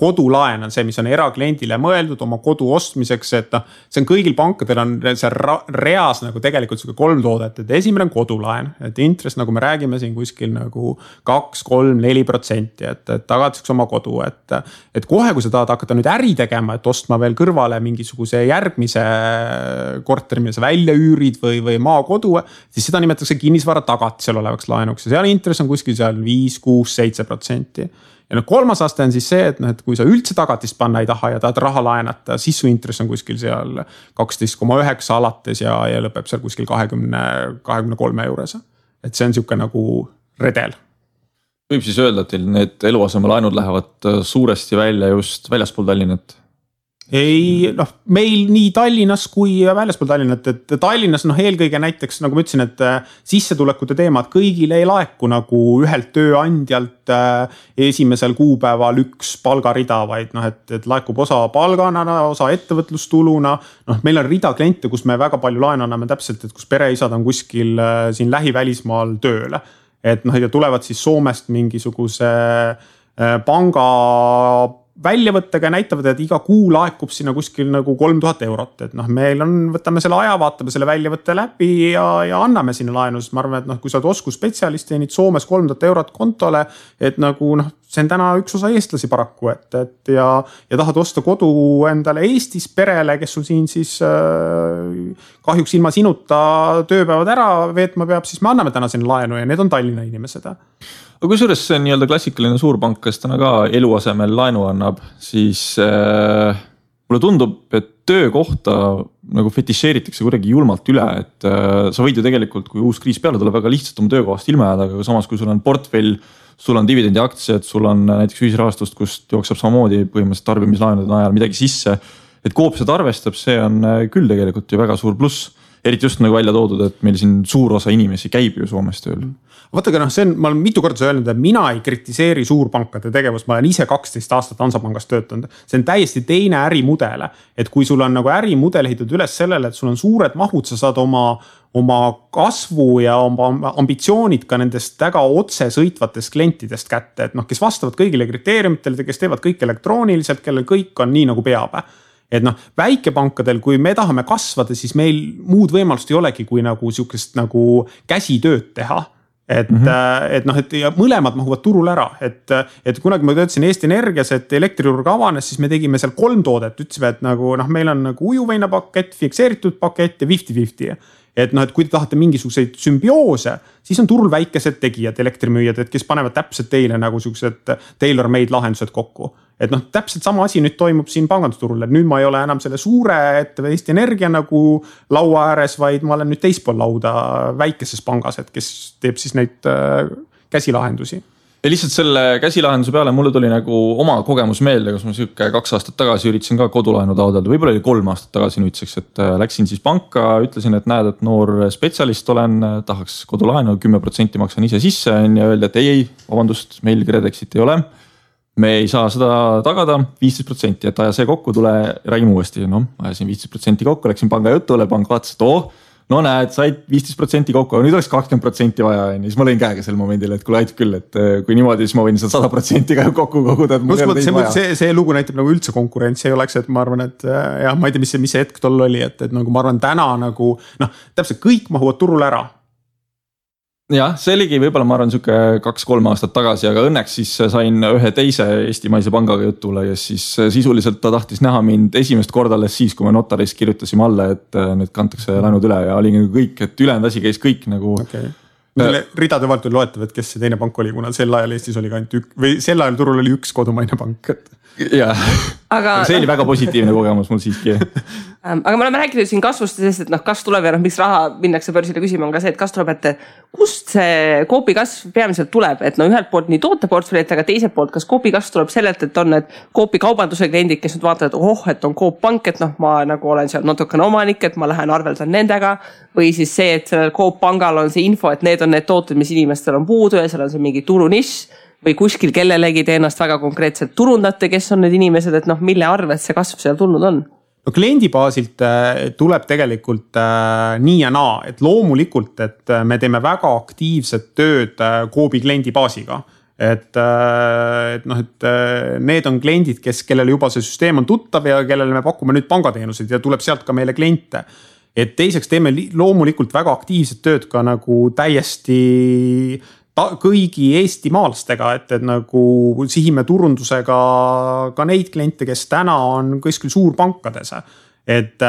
kodulaen on see, mis on erakliendile mõeldud oma kodu ostmiseks, et see on kõigil pankadel on see reas nagu tegelikult 3 toodet, et esimene on kodulaen, et intress, nagu me räägime siin kuskil nagu 2-3-4%, et tagatiseks oma kodu, et kohe, kui sa tahad hakata nüüd äri tegema, et ostma veel kõrvale mingisuguse järgmise korteri, mille sa välja üürid või maakodu, siis seda nimetatakse kinnisvara tagatisel olevaks laenuks ja seal intress on kuskil seal 5-6-7%. Ja kolmas aste on siis see, et kui sa üldse tagatist panna ei taha ja tahad raha laenata, siis su intress on kuskil seal 12,9 alates ja lõpeb seal kuskil 20-23 juures. Et see on siuke nagu redel. Võib siis öelda, et teil need eluasemelaenud lähevad suuresti välja just väljaspool Tallinnat? Ei, meil nii Tallinnas kui väljaspool Tallinnat, et Tallinnas eelkõige näiteks, nagu ma ütlesin, et sissetulekute teemad kõigile ei laeku nagu ühelt tööandjalt esimesel kuupäeval üks palgarida, vaid et laekub osa palgana, osa ettevõtlustuluna. Meil on rida kliente, kus me väga palju laenu anname täpselt, et kus pereisad on kuskil siin lähivälismaal tööle. Et ja tulevad siis Soomest mingisuguse panga väljavõttega näitavad, et iga kuu laekub sinna kuskil nagu 3000 eurot. Et meil võtame selle aja, vaatame selle väljavõtte läbi ja anname sinna laenu. Ma arvan, et kui sa oled oskusspetsialist teenid Soomes 3000 eurot kontole, et nagu see on täna üks osa eestlasi paraku, ja tahad osta kodu endale Eestis perele, kes sul siin siis kahjuks ilma sinuta tööpäevad ära veetma peab, siis me anname täna sinna laenu ja need on Tallinna inimesed. Aga kui suures see nii-öelda klassikaline suurpank, kes täna ka eluasemel laenu annab, siis mulle tundub, et töökohta nagu fetišeeritakse kuidagi julmalt üle, et sa võid ju tegelikult, kui uus kriis peale tuleb, väga lihtsalt oma töökohast ilma jääda, aga samas kui sul on portfell, sul on dividendi aktsiad, sul on näiteks ühisrahastust, kust jookseb samamoodi põhimõtteliselt tarbimislaenude najal midagi sisse, et Coop seda arvestab, see on küll tegelikult ju väga suur pluss. Eriti just nagu välja toodud, et meil siin suur osa inimesi käib ju Soomes tööl. Vaatagi, ma olen mitu korda öelnud, et mina ei kritiseeri suurpankade tegevust, ma olen ise 12 aastat Hansapangas töötanud. See on täiesti teine ärimudele, et kui sul on nagu ärimudel ehitatud üles sellele, et sul on suured mahud, sa saad oma kasvu ja oma ambitsioonid ka nendest väga otse sõitvatest klientidest kätte, et kes vastavad kõigile kriteeriumitele, kes teevad kõik elektrooniliselt, kellel kõik on nii nagu peab. Et väikepankadel, kui me tahame kasvada, siis meil muud võimalust ei olegi, kui nagu siukest nagu käsitööd teha. Et ja mõlemad mahuvad turul ära, et kunagi ma töötasin Eesti Energias, et elektriturg avanes, siis me tegime seal 3 toodet, ütlesime, et nagu meil on nagu ujuveina pakett, fikseeritud pakett ja 50-50. Et kui te tahate mingisuguseid sümbioose, siis on turul väikesed tegijad, elektrimüüjad, et kes panevad täpselt teile nagu siuksed tailor-made lahendused kokku. Et täpselt sama asi nüüd toimub siin pangandusturul, et nüüd ma ei ole enam selle suure Eesti Energia nagu laua ääres, vaid ma olen nüüd teispool lauda väikeses pangas, et kes teeb siis neid käsilahendusi. Ja lihtsalt selle käsilahenduse peale mulle tuli nagu oma kogemus meelde, kus ma siuke 2 aastat tagasi üritasin ka kodulaenu taotleda, võib-olla oli 3 aastat tagasi nüüdseks, et läksin siis panka, ütlesin, et näed, et noor spetsialist olen, tahaks kodulaenu, 10% maksan ise sisse ja öeldi, et ei, vabandust, meil Kredexit ei ole. Me ei saa seda tagada 15%, et aja see kokku, tule räägime uuesti. Ajasin 15% kokku, läksin panga jutule, pank vaatas, et no näed, said 15% kokku, nüüd oleks 20% vaja. Ja siis ma lõin käega sel momendil, et kuule aitab küll, et kui niimoodi, siis ma võin seda 100% ka kokku koguda. See lugu näitab nagu üldse konkurentsi ei oleks, et ma arvan, et jah, ma ei tea, mis see hetk tol oli, et nagu ma arvan täna nagu täpselt kõik mahuvad turul ära. Jah, see oligi võib-olla ma arvan siuke 2-3 aastat tagasi, aga õnneks siis sain ühe teise eestimaise pangaga jutule ja siis sisuliselt ta tahtis näha mind esimest korda alles siis, kui me notaris kirjutasime alla, et nüüd kantakse laenud üle ja oli nagu kõik, et ülejäänud asi käis kõik nagu. Okay. Ridade vahelt oli loetav, et kes see teine pank oli, kuna sel ajal Eestis oli ka ainult või sel ajal turul oli üks kodumaine pank. Jah, aga see oli väga positiivne kogemus mul siiski. Aga me oleme rääkinud siin kasvust, sest et kasv tuleb ja miks raha minnakse börsile küsima on ka see, et kasv tuleb, et kust see Coopi kasv peamiselt tuleb, et ühelt poolt nii tooteportfellit, aga teiselt poolt, kas Coopi kasv tuleb sellelt, et on need Coopi kaubanduse kliendid, kes nüüd vaatavad, et on Coop pank, et ma nagu olen seal natukene omanik, et ma lähen arveldan nendega või siis see, et sellel Coop pangal on see info, et need on need tooted, mis inimestel on puudu ja seal on see mingi turunišš või kuskil kellelegi te ennast väga konkreetselt turundate, kes on need inimesed, et mille arvelt see kasv seal tulnud on? No kliendi baasilt tuleb tegelikult nii ja naa, et loomulikult, et me teeme väga aktiivset tööd Coopi kliendi baasiga. Et need on kliendid, kellel juba see süsteem on tuttav ja kellele me pakume nüüd pangateenuseid ja tuleb sealt ka meile kliente. Et teiseks teeme loomulikult väga aktiivset tööd ka nagu täiesti kõigi eestimaalastega, et nagu sihime turundusega ka neid kliente, kes täna on kuskil suurpankades. Et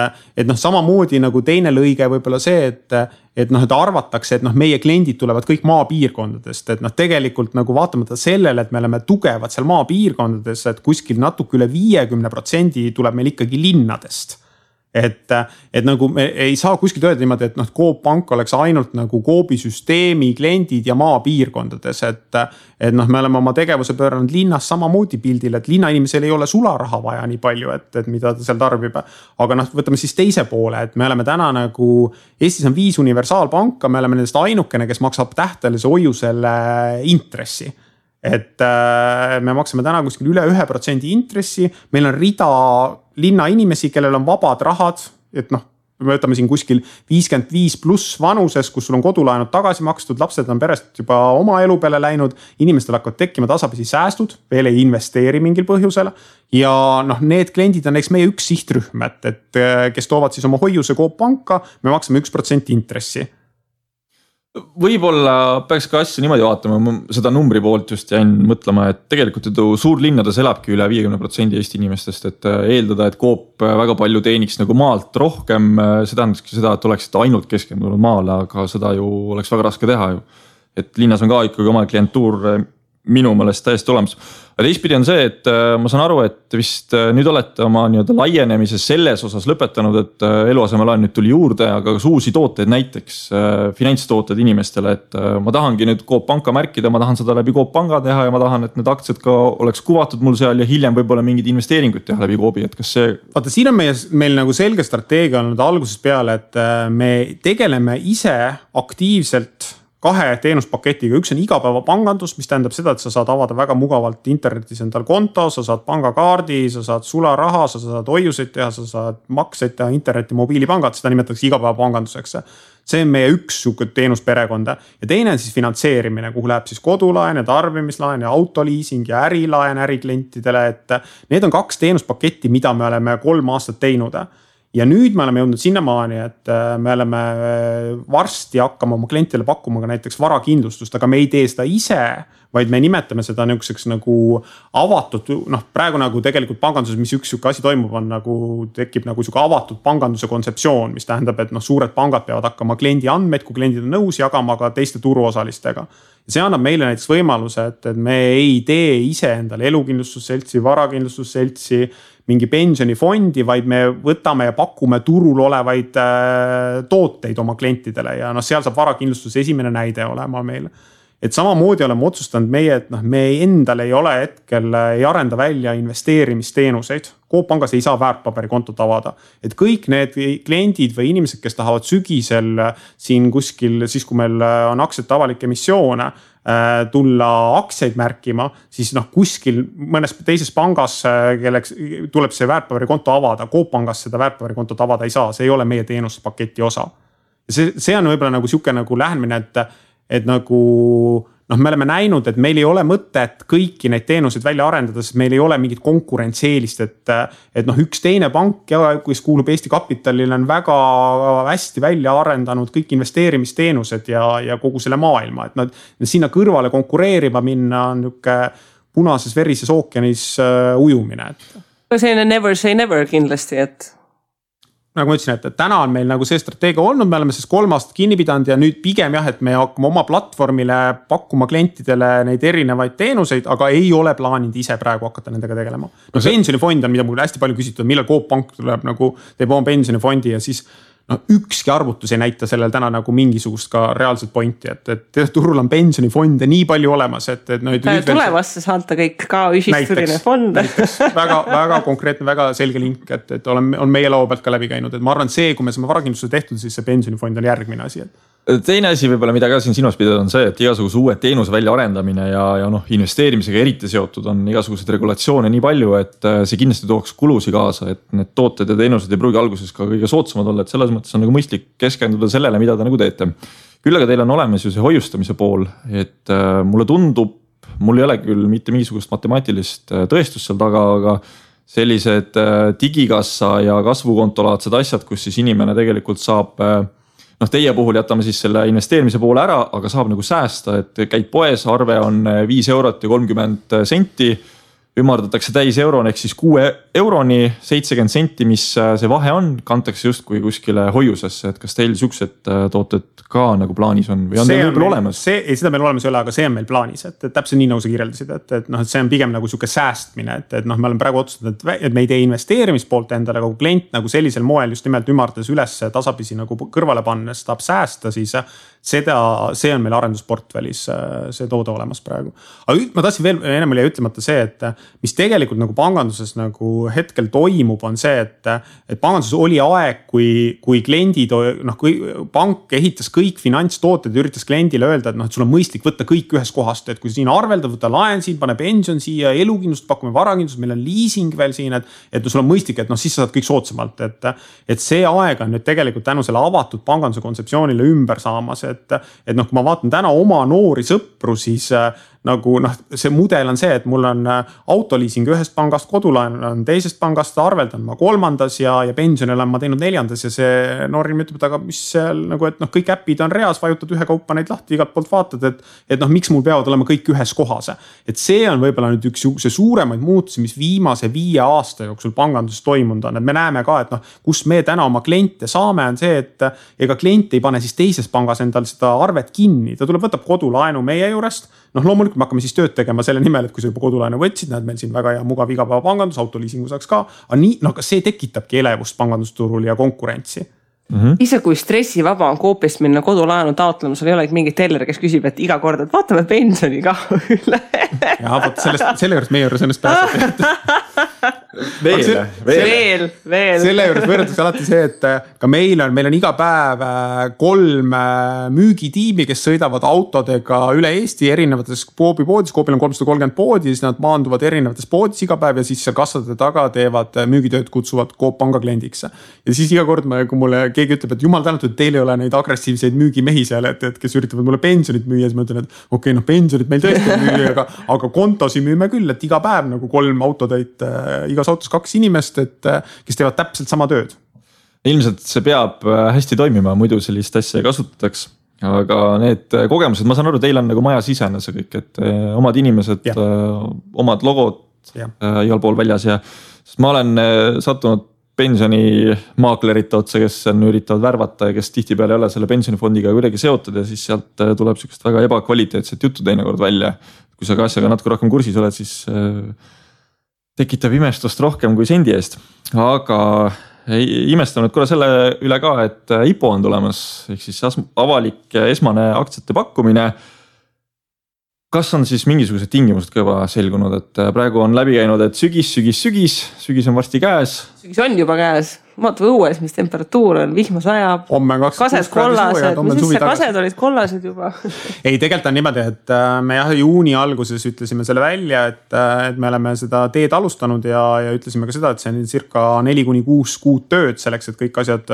samamoodi nagu teine lõige võib-olla see, et arvatakse, et meie kliendid tulevad kõik maapiirkondadest, et tegelikult nagu vaatamata sellele, et me oleme tugevad seal maapiirkondades, et kuskil natuke üle 50% tuleb meil ikkagi linnadest. Et nagu me ei saa kuskilt öelda niimoodi, et Coop pank oleks ainult nagu Coopi süsteemi kliendid ja maapiirkondades, et me oleme oma tegevuse pööranud linnas samamoodi pildil, et linnainimesel ei ole sularaha vaja nii palju, et mida ta seal tarbib. Aga võtame siis teise poole, et me oleme täna nagu, Eestis on 5 universaalpanka, me oleme nendest ainukene, kes maksab tähtelise hoiusele intressi. Et me maksame täna kuskil üle 1% intressi, meil on rida linna inimesi, kellel on vabad rahad, et me võtame siin kuskil 55 pluss vanuses, kus sul on kodulaenud tagasi makstud, lapsed on perest juba oma elu peale läinud, inimestel hakkavad tekkima tasapisi säästud, veel ei investeeri mingil põhjusel ja need kliendid on eks meie üks sihtrühm, et kes toovad siis oma hoiuse Coop panka, me maksame 1% intressi. Võib-olla peaks ka asja niimoodi vaatama, ma seda numbri poolt just jäin mõtlema, et tegelikult suurlinnades elabki üle 50% Eesti inimestest, et eeldada, et Coop väga palju teeniks nagu maalt rohkem, see tähendakski seda, et oleksid ainult keskendunud maale, aga seda ju oleks väga raske teha ju. Et linnas on ka ikkagi oma klientuur minu meelest täiesti olemas. Aga teistpidi on see, et ma saan aru, et vist nüüd olete oma laienemises selles osas lõpetanud, et eluasemelaen nüüd tuli juurde, aga ka uusi tooteid, näiteks finantstooted inimestele, et ma tahangi nüüd Coop panka märkida, ma tahan seda läbi Coop panga teha ja ma tahan, et need aktsiad ka oleks kuvatud mul seal ja hiljem võib-olla mingid investeeringuid teha läbi Coopi, et kas see... Vaata, siin on meil nagu selge strateegia olnud algusest peale, et me tegeleme ise aktiivselt 2 teenuspaketiga, üks on igapäevapangandus, mis tähendab seda, et sa saad avada väga mugavalt internetis endal konto, sa saad pangakaardi, sa saad sularaha, sa saad hoiuseid teha, sa saad makseid teha interneti mobiilipangad, seda nimetatakse igapäevapanganduseks. See on meie üks teenusperekonda ja teine on siis finantseerimine, kuhu läheb siis kodulaen ja tarbimislaen ja autoliising ja ärilaen äriklientidele, et need on 2 teenuspaketti, mida me oleme 3 aastat teinud. Ja nüüd me oleme jõudnud sinnamaani, et me oleme varsti hakkama oma klientidele pakkuma ka näiteks varakindlustust, aga me ei tee seda ise, vaid me nimetame seda niisuguseks nagu avatud, praegu nagu tegelikult panganduses, mis üks asi toimub, on nagu tekib nagu niisugune avatud panganduse kontseptsioon, mis tähendab, et suured pangad peavad hakkama kliendi andmeid, kui kliendid on nõus jagama ka teiste turuosalistega. See annab meile näiteks võimaluse, et me ei tee ise endale elukindlustusseltsi, varakindlustusseltsi, mingi pensionifondi, vaid me võtame ja pakume turul olevaid tooteid oma klientidele ja seal saab varakindlustus esimene näide olema meil. Et samamoodi oleme otsustanud meie, et me endale ei ole hetkel, ei arenda välja investeerimisteenuseid. Coop pangas ei saa väärtpaberikontot avada. Et kõik need kliendid või inimesed, kes tahavad sügisel siin kuskil, siis kui meil on aktsiate avalik emissioone, tulla aktsiaid märkima, siis kuskil mõnes teises pangas, kelleks tuleb see väärtpaberikonto avada, Coop pangas seda väärtpaberikontot avada ei saa, see ei ole meie teenuspaketi osa. see on võib-olla nagu sihuke nagu lähenemine, et nagu me oleme näinud, et meil ei ole mõtet kõiki neid teenuseid välja arendada, sest meil ei ole mingit konkurentseelist, et üks teine pank, kes kuulub Eesti Kapitalile, on väga hästi välja arendanud kõik investeerimisteenused ja kogu selle maailma, et nad sinna kõrvale konkureerima minna on niuke punases verises ookeanis ujumine. See on never say never kindlasti, et nagu ma ütlesin, et täna on meil nagu see strateegia olnud, me oleme siis 3 aastat kinni pidanud ja nüüd pigem jah, et me hakkame oma platvormile pakkuma klientidele neid erinevaid teenuseid, aga ei ole plaaninud ise praegu hakata nendega tegelema. Pensionifond on, mida mul hästi palju küsitud, millal Coop Pank tuleb nagu teeb oma pensionifondi ja siis ükski arvutus ei näita sellel täna nagu mingisugust ka reaalset pointi, et turul on pensionifonde nii palju olemas, et tulevasse saata kõik ka ühistuline fond. väga konkreetne, väga selge link, et on meie laua pealt ka läbi käinud, et ma arvan, see, kui me saame varakindlustuse tehtud, siis see pensionifond on järgmine asi. Teine asi võib-olla, mida ka siin silmas pidada on see, et igasuguse uue teenuse välja arendamine ja investeerimisega eriti seotud on igasugused regulatsioone nii palju, et see kindlasti tooks kulusi kaasa, et need tooted ja teenused ei pruugi alguses ka kõige soodsamad olla, et selles mõttes on nagu mõistlik keskenduda sellele, mida te nagu teete. Küll aga teil on olemas ju see hoiustamise pool, et mulle tundub, mul ei ole küll mitte mingisugust matemaatilist tõestust seal taga, aga sellised digikassa ja kasvukontolaadsed asjad, kus siis inimene tegelikult saab teie puhul jätame siis selle investeerimise poole ära, aga saab nagu säästa, et käid poes, arve on 5 eurot ja 30 senti, ümardatakse täis euroni ehk siis 6 euroni 70 senti, mis see vahe on, kantakse justkui kuskile hoiusesse, et kas teil siuksed tooted ka nagu plaanis on või on teil võib-olla olemas? Seda meil olemas ei ole, aga see on meil plaanis, et täpselt nii nagu sa kirjeldasid, et see on pigem nagu siuke säästmine, et me oleme praegu otsustanud, et me ei tee investeerimispoolt endale, aga kui klient nagu sellisel moel just nimelt ümardades üles tasapisi nagu kõrvale pannes tahab säästa, siis see on meil arendusportfellis see toode olemas praegu. Aga ma tahtsin veel, ennem oli ütlemata see, et mis tegelikult nagu panganduses nagu hetkel toimub, on see, et panganduses oli aeg, kui kliendid, kui pank ehitas kõik finantstooted ja üritas kliendile öelda, et sul on mõistlik võtta kõik ühes kohast, et kui siin arveldad, võtta laen siin, pane pension siia, elukindlust, pakume varakindlust, meil on leasing veel siin, et sul on mõistlik, et siis sa saad kõik soodsamalt, et see aeg on nüüd tegelikult tänu selle avatud panganduse kontseptsioonile ümber saamas, et kui ma vaatan täna oma noori sõpru, siis nagu see mudel on see, et mul on autoliising ühest pangast, kodulaen on teisest pangast, arveldan ma 3. ja pensionil on ma teinud 4. ja see noorim ütleb, aga mis seal nagu, et kõik äpid on reas, vajutad ühe kaupa neid lahti, igalt poolt vaatad, et miks mul peavad olema kõik ühes kohas. Et see on võib-olla nüüd üks suuremaid muutusi, mis viimase 5 aasta jooksul panganduses toimunud on, et me näeme ka, et kus me täna oma kliente saame, on see, et ega klient ei pane siis teises pangas endal seda arvet kinni, ta tuleb, võtab kodulaenu meie juurest, loomulikult me hakkame siis tööd tegema selle nimel, et kui sa juba kodulaenu võtsid, näed meil siin väga hea mugav igapäeva pangandus, autoliisingu saaks ka, aga see tekitabki elevust pangandusturul ja konkurentsi. Ise kui stressivaba on Coopist minna kodulaenu taotlema, sul ei ole mingi teller, kes küsib, et iga kord, et vaatame pensioni ka üle. Ja võt selle juures meie juures ennast pääseb. Veel. Selle juures võrdatakse alati see, et ka meil on iga päev 3 müügitiimi, kes sõidavad autodega üle Eesti erinevates Coopi poodis. Coopil on 330 poodi, siis nad maanduvad erinevates poodis iga päev ja siis seal kassade taga teevad müügitööd, kutsuvad Coop panga kliendiks. Ja siis iga kord, kui mulle keegi ütleb, et jumal tänatud, et teil ei ole neid agressiivseid müügimehi seal, et kes üritavad mulle pensionit müüa, siis ma ütlen, et okei, pensionit meil tõesti müüa, aga kontosi müüme küll, et iga päev nagu 3 autotäit, igas autos 2 inimest, kes teevad täpselt sama tööd. Ilmselt see peab hästi toimima, muidu sellist asja ei kasutataks. Aga need kogemused, ma saan aru, teil on nagu maja sisene see kõik, et omad inimesed, omad logod igal pool väljas ja ma olen sattunud pensionimaaklerite otsa, kes üritavad värvata ja kes tihtipeale ei ole selle pensionifondiga kuidagi seotud ja siis sealt tuleb sükest väga ebakvaliteetset juttu teinekord välja. Kui sa ka asjaga natuke rohkem kursis oled, siis tekitab imestust rohkem kui sendi eest. Aga imestanud korra selle üle ka, et IPO on tulemas, ehk siis avalik esmane aktsiate pakkumine. Kas on siis mingisugused tingimused ka juba selgunud, et praegu on läbi käinud, et sügis on varsti käes. Sügis on juba käes. vaatame õues, mis temperatuur on, vihma sajab. Kased kollased, mis siis kased olid kollased juba? Ei, tegelikult on niimoodi, et me juuni alguses ütlesime selle välja, et me oleme seda teed alustanud ja ütlesime ka seda, et see on circa 4-6 kuud tööd selleks, et kõik asjad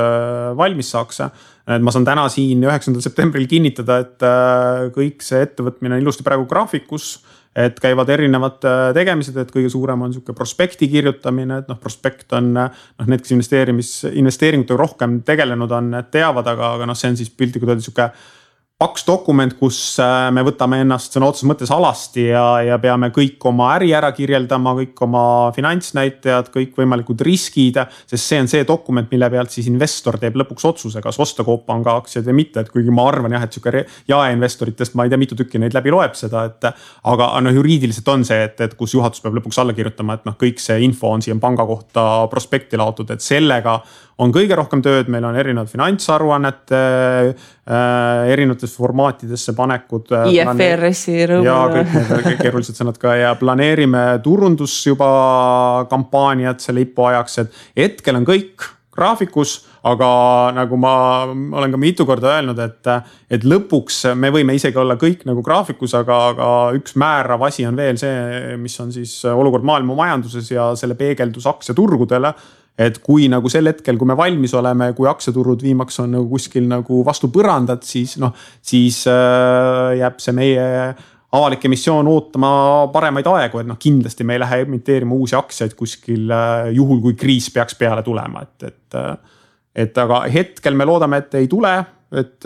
valmis saaks. Et ma saan täna siin 9. septembril kinnitada, et kõik see ettevõtmine on ilusti praegu graafikus, et käivad erinevad tegemised, et kõige suurem on niisugune prospekti kirjutamine, et prospekt on need, kes investeeringutega rohkem tegelenud on, teavad, aga see on siis piltlikult öelda niisugune paks dokument, kus me võtame ennast sõna otseses mõttes alasti ja peame kõik oma äri ära kirjeldama, kõik oma finantsnäitajad, kõik võimalikud riskid, sest see on see dokument, mille pealt siis investor teeb lõpuks otsuse, kas osta Coop Panga aktsiaid või mitte, et kuigi ma arvan jah, et niisugune jaeinvestoritest ma ei tea, mitu tükki neid läbi loeb seda, aga juriidiliselt on see, et kus juhatus peab lõpuks alla kirjutama, et kõik see info on siia panga kohta prospekti laotud, et sellega on kõige rohkem tööd, meil on erinevad finantsaruannete, erinevates formaatidesse panekud. IFRS-i rõõmu. Ja kõik need keerulised sõnad ka ja planeerime turundus juba kampaaniat selle IPO ajaks, et hetkel on kõik graafikus, aga nagu ma olen ka mitu korda öelnud, et lõpuks me võime isegi olla kõik nagu graafikus, aga üks määrav asi on veel see, mis on siis olukord maailma majanduses ja selle peegeldus aktsiaturgudele. Et kui nagu sel hetkel, kui me valmis oleme, kui aktsiaturud viimaks on nagu kuskil nagu vastu põrandat, siis jääb see meie avalik emissioon ootama paremaid aegu, et kindlasti me ei lähe emiteerima uusi aktsiaid kuskil juhul, kui kriis peaks peale tulema. Et aga hetkel me loodame, et ei tule, et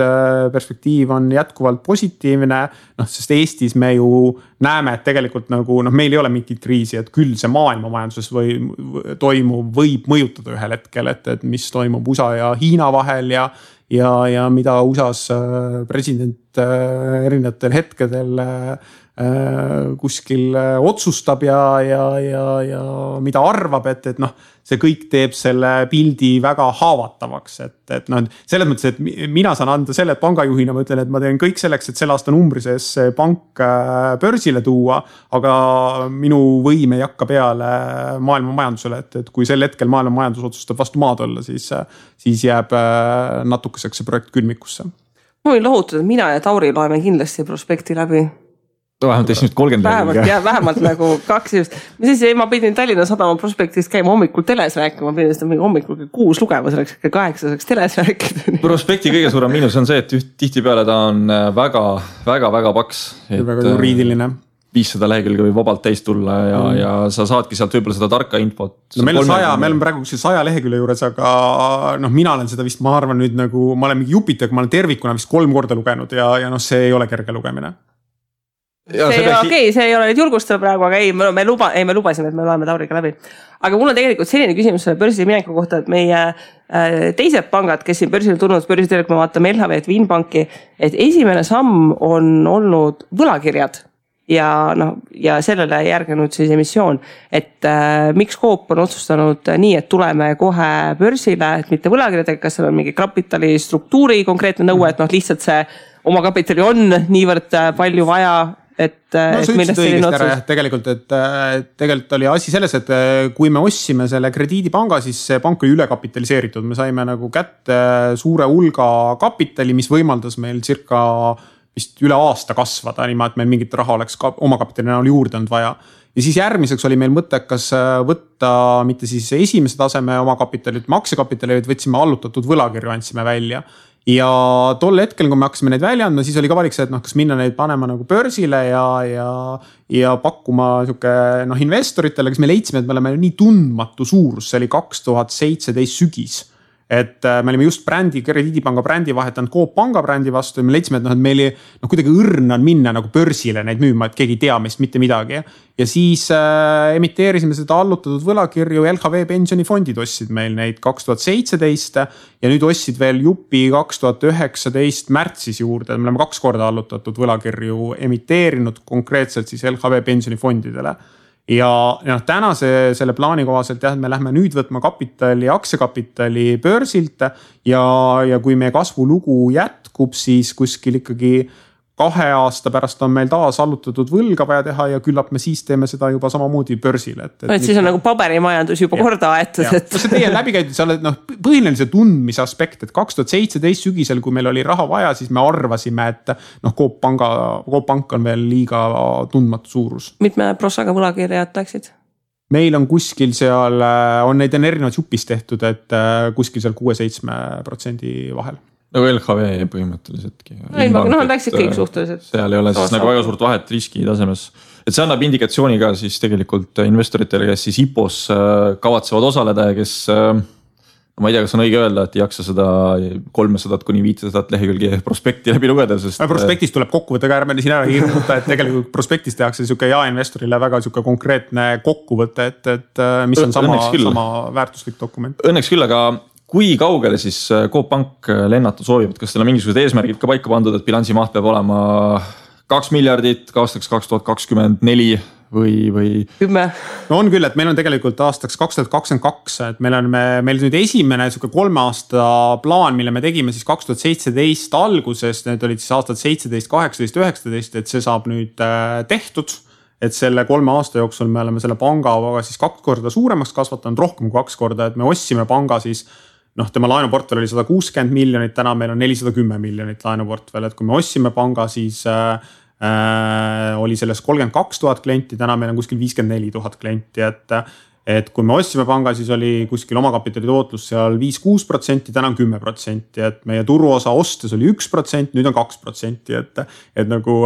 perspektiiv on jätkuvalt positiivne, sest Eestis me ju näeme, et tegelikult nagu, meil ei ole mingit kriisi, et küll see maailma majanduses võib mõjutada ühel hetkel, et mis toimub USA ja Hiina vahel ja mida USA's president erinevatel hetkedel kuskil otsustab ja mida arvab, et see kõik teeb selle pildi väga haavatavaks, et selles mõttes, et mina saan anda selle pangajuhina, ma ütlen, et ma teen kõik selleks, et selle aasta numbri sees pank börsile tuua, aga minu võim ei hakka peale maailma majandusele, et kui sel hetkel maailma majandus otsustab vastu maad olla, siis jääb natukeseks see projekt külmikusse. Ma võin lohutada, et mina ja Tauri loeme kindlasti prospekti läbi. Vähemalt esimest 30 vähemalt nagu 2 just. Ma pidin Tallinna Sadama prospektist käima hommikul teles rääkima, ma pidin seda hommikul 6 lugema, selleks 8 saaks teles rääkida. Prospekti kõige suurem miinus on see, et tihtipeale ta on väga paks. Väga juriidiline. 500 lehekülge võib vabalt täis tulla ja sa saadki sealt võib-olla seda tarka infot. Meil on praegu 100 lehekülje juures, aga mina olen seda vist, ma arvan nüüd nagu, ma olen mingi Jupiter, ma olen tervikuna vist 3 korda lugenud ja see ei ole kerge lugemine. See ei ole nüüd julgustada praegu, aga me lubasime, et me loeme Tauriga läbi. Aga mul on tegelikult selline küsimus selle börsile mineku kohta, et meie teised pangad, kes siin börsile tulnud, börsiteele, kui me vaatame LHV, Vinbanki, et esimene samm on olnud võlakirjad ja sellele järgenud siis emissioon, et miks Coop on otsustanud nii, et tuleme kohe börsile, et mitte võlakirjadega, kas seal on mingi kapitali struktuuri konkreetne nõue, et lihtsalt see oma kapitali on niivõrd palju vaja, sa ütlesid õigesti ära jah, tegelikult oli asi selles, et kui me ostsime selle krediidipanga, siis see pank oli ülekapitaliseeritud, me saime nagu kätte suure hulga kapitali, mis võimaldas meil circa vist üle aasta kasvada, niimoodi, et meil mingit raha oleks oma kapitali näol juurde olnud vaja. Ja siis järgmiseks oli meil mõttekas võtta mitte siis esimese taseme oma kapitali, maksekapitali, vaid võtsime allutatud võlakirju, andsime välja. Ja tol hetkel, kui me hakkasime neid välja andma, siis oli ka valik see, et kas minna neid panema nagu börsile ja pakkuma investoritele, kes me leidsime, et me oleme nii tundmatu suurus, see oli 2017 sügis. Et me olime just krediidipanga brändi vahetanud Coop Panga brändi vastu ja me leidsime, et meil kuidagi õrn on minna nagu börsile neid müüma, et keegi ei tea meist mitte midagi. Ja siis emiteerisime seda allutatud võlakirju, LHV pensionifondid ostsid meil neid 2017 ja nüüd ostsid veel Jupi 2019 märtsis juurde. Me oleme 2 korda allutatud võlakirju emiteerinud konkreetselt siis LHV pensionifondidele. Ja tänase selle plaani kohaselt jah, et me lähme nüüd võtma aktsiakapitali börsilt ja kui meie kasvulugu jätkub, siis kuskil ikkagi 2 aasta pärast on meil taas allutatud võlga vaja teha ja küllap me siis teeme seda juba samamoodi börsil. Et siis on nagu paberimajandus juba korda aetud. No see teie läbikäidud, sa oled põhiline see tundmise aspekt, et 2017 sügisel, kui meil oli raha vaja, siis me arvasime, et Coop Pank on veel liiga tundmatu suurus. Mitme prossaga võlakirjad läksid? Meil on kuskil seal, on neid erinevaid jupis tehtud, et kuskil seal 6-7% vahel. Nagu LHV põhimõtteliseltki. Nad läksid kõik suhteliselt. Seal ei ole siis nagu väga suurt vahet riski tasemes. Et see annab indikatsiooni ka siis tegelikult investoritele, kes siis IPOs kavatsevad osaleda ja kes, ma ei tea, kas on õige öelda, et ei jaksa seda 300 kuni 500 lehekülgi prospekti läbi lugeda. Sest prospektis tuleb kokkuvõte ka ärme siin ära hirmuta, et tegelikult prospektis tehakse siuke jaeinvestorile väga siuke konkreetne kokkuvõte, et mis on sama väärtuslik dokument. Õnneks küll, aga kui kaugele siis Coop Pank lennata soovib, et kas teil on mingisugused eesmärgid ka paika pandud, et bilansi maht peab olema 2 miljardit aastaks 2024 või 10? No on küll, et meil on tegelikult aastaks 2022, et meil nüüd esimene 3 aasta plaan, mille me tegime siis 2017 alguses, need olid siis aastad 17, 18, 19, et see saab nüüd tehtud. Et selle 3 aasta jooksul me oleme selle panga siis 2 korda suuremaks kasvatanud, rohkem kui 2 korda, et me ostsime panga siis tema laenuportfell oli 160 miljonit, täna meil on 410 miljonit laenuportfell, et kui me ostsime panga, siis oli selles 32 000 klienti, täna meil on kuskil 54 000 klienti, et kui me ostsime panga, siis oli kuskil omakapitali tootlus seal 5-6%, täna on 10%, et meie turuosa ostes oli 1%, nüüd on 2%, et nagu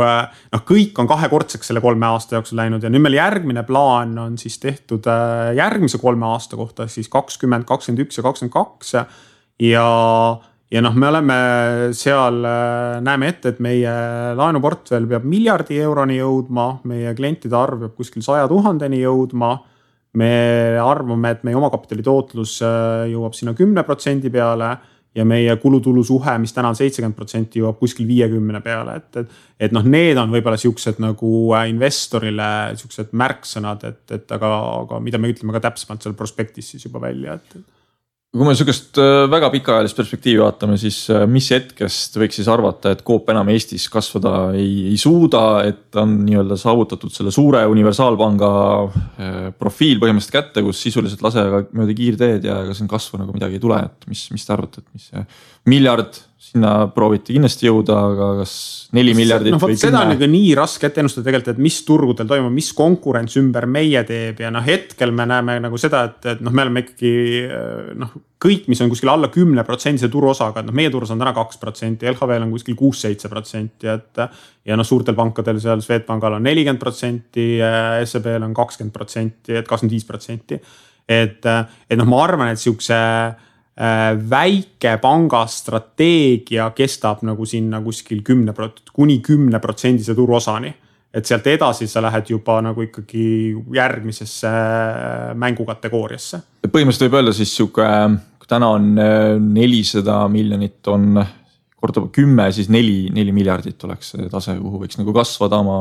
kõik on 2-kordseks selle 3 aasta jooksul läinud ja nüüd meil järgmine plaan on siis tehtud järgmise 3 aasta kohta, siis 20, 21 ja 22 ja me oleme seal, näeme ette, et meie laenuportfell peab miljardi euroni jõudma, meie klientide arv peab kuskil 100 000-ni jõudma. Me arvame, et meie omakapitali tootlus jõuab sinna 10% peale ja meie kulutulu suhe, mis täna on 70%, jõuab kuskil 50 peale. Et need on võibolla siuksed nagu investorile siuksed märksõnad, aga mida me ütleme ka täpsemalt seal prospektis siis juba välja. Kui me sükest väga pikaajalist perspektiivi vaatame, siis mis hetkest võiks siis arvata, et Coop enam Eestis kasvada ei suuda, et on nii-öelda saavutatud selle suure universaalpanga profiil põhimõtteliselt kätte, kus sisuliselt lase mööda kiirteed ja ega siin kasvu nagu midagi ei tule, et mis te arvate, et mis see miljard sinna prooviti kindlasti jõuda, aga kas 4 miljardit või 10? Seda on nii raske ette ennustada tegelikult, et mis turgudel toimub, mis konkurents ümber meie teeb ja hetkel me näeme nagu seda, et me oleme ikkagi kõik, mis on kuskil alla 10% turuosaga, et meie turus on täna 2%, LHV on kuskil 6-7%, ja suurtel pankadel seal Swedbankal on 40%, SEBL on 20%, et 25%. Et ma arvan, et siukse väike panga strateegia kestab nagu sinna kuskil 10% kuni 10% turuosani. Et sealt edasi sa lähed juba nagu ikkagi järgmisesse mängukategooriasse. Põhimõtteliselt võib öelda siis siuke, kui täna on 400 miljonit on korda 10, siis 4 miljardit oleks see tase, kuhu võiks nagu kasvada oma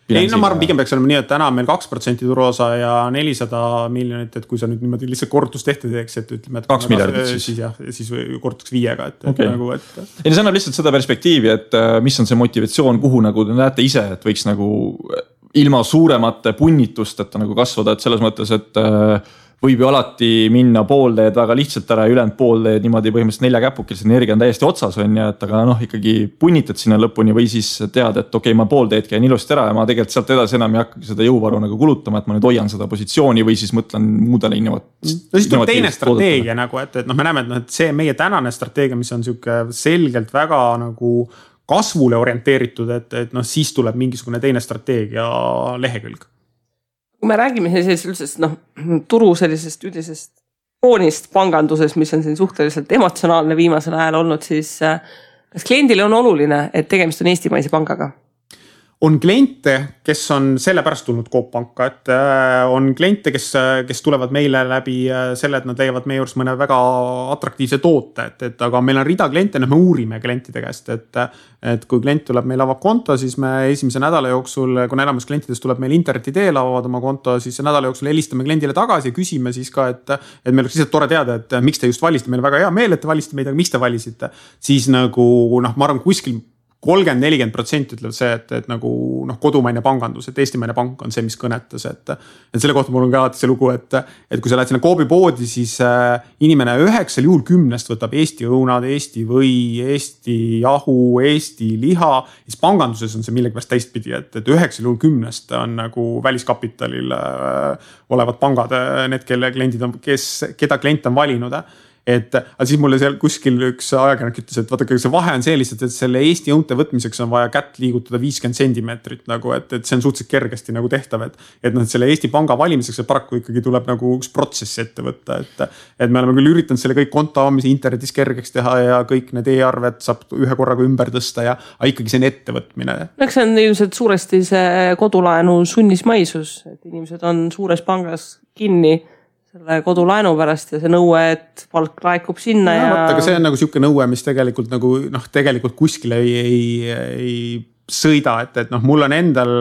bilansiga. Ei, ma arvan, pigem peaks olema nii, et täna on meil 2% turuosa ja 400 miljonit, et kui sa nüüd niimoodi lihtsalt korrutus tehte teeks, et ütleme, et 2 miljardit siis. Siis korrutuks 5-ga, okay. Ja see annab lihtsalt seda perspektiivi, et mis on see motivatsioon, kuhu nagu te näete ise, et võiks nagu ilma suuremate punnitusteta nagu kasvada, et selles mõttes, et võib ju alati minna poolteed väga lihtsalt ära ja ülejäänud poolteed niimoodi põhimõtteliselt 4 käpukil, see energia on täiesti otsas on ja, et aga ikkagi punnitad sinna lõpuni või siis tead, et okei, ma poolteed käin ilusti ära ja ma tegelikult sealt edasi enam ei hakka seda jõuvaru nagu kulutama, et ma nüüd hoian seda positsiooni või siis mõtlen muudele No siis tuleb teine strateegia nagu, et me näeme, et see meie tänane strateegia, mis on siuke selgelt väga nagu kasvule orienteeritud, et siis tuleb mingisugune teine strateegia lehekülg. Kui me räägime sellisest turu sellisest üldisest foonist panganduses, mis on siin suhteliselt emotsionaalne viimasel ajal olnud, siis kas kliendile on oluline, et tegemist on eestimaise pangaga? On kliente, kes on sellepärast tulnud Coop Panka, et on kliente, kes tulevad meile läbi selle, et nad leiavad meie juures mõne väga atraktiivse toote, et aga meil on rida kliente, me uurime klientide käest, et kui klient tuleb meil avab konto, siis me esimese nädala jooksul, kui enamus klientidest tuleb meil interneti teel avavad oma konto, siis nädala jooksul helistame kliendile tagasi ja küsime siis ka, et meil oleks lihtsalt tore teada, et miks te just valisite, meil väga hea meel, et te valisite meid, aga miks te valisite, siis nagu ma arvan, kuskil 30-40% ütleb see, et nagu noh, kodumaine pangandus, et eestimaine pank on see, mis kõnetas, et selle kohta mul on ka alati see lugu, et kui sa lähed sinna Coopi poodi, siis inimene 9 juhul 10 võtab Eesti õunad, Eesti või, Eesti jahu, Eesti liha. Siis panganduses on see millegipärast teistpidi, et 9 juhul 10 on nagu väliskapitalil olevad pangad, need, kelle kliendid on, keda klient on valinud. Et siis mulle seal kuskil üks ajakirjanik ütles, et vaadake, see vahe on see lihtsalt, et selle Eesti õunte võtmiseks on vaja kätt liigutada 50 sentimeetrit nagu, et see on suhteliselt kergesti nagu tehtav, et noh, selle Eesti panga valimiseks see paraku ikkagi tuleb nagu üks protsess ette võtta, et me oleme küll üritanud selle kõik konto avamise internetis kergeks teha ja kõik need e-arved saab ühe korraga ümber tõsta ja ikkagi see on ettevõtmine. Eks see on ilmselt suuresti see kodulaenu sunnismaisus, et inimesed on suures pangas kinni selle kodulaenu pärast ja see nõue, et palk laekub sinna ja. Aga see on nagu siuke nõue, mis tegelikult nagu noh, tegelikult kuskile ei sõida, et noh, mul on endal,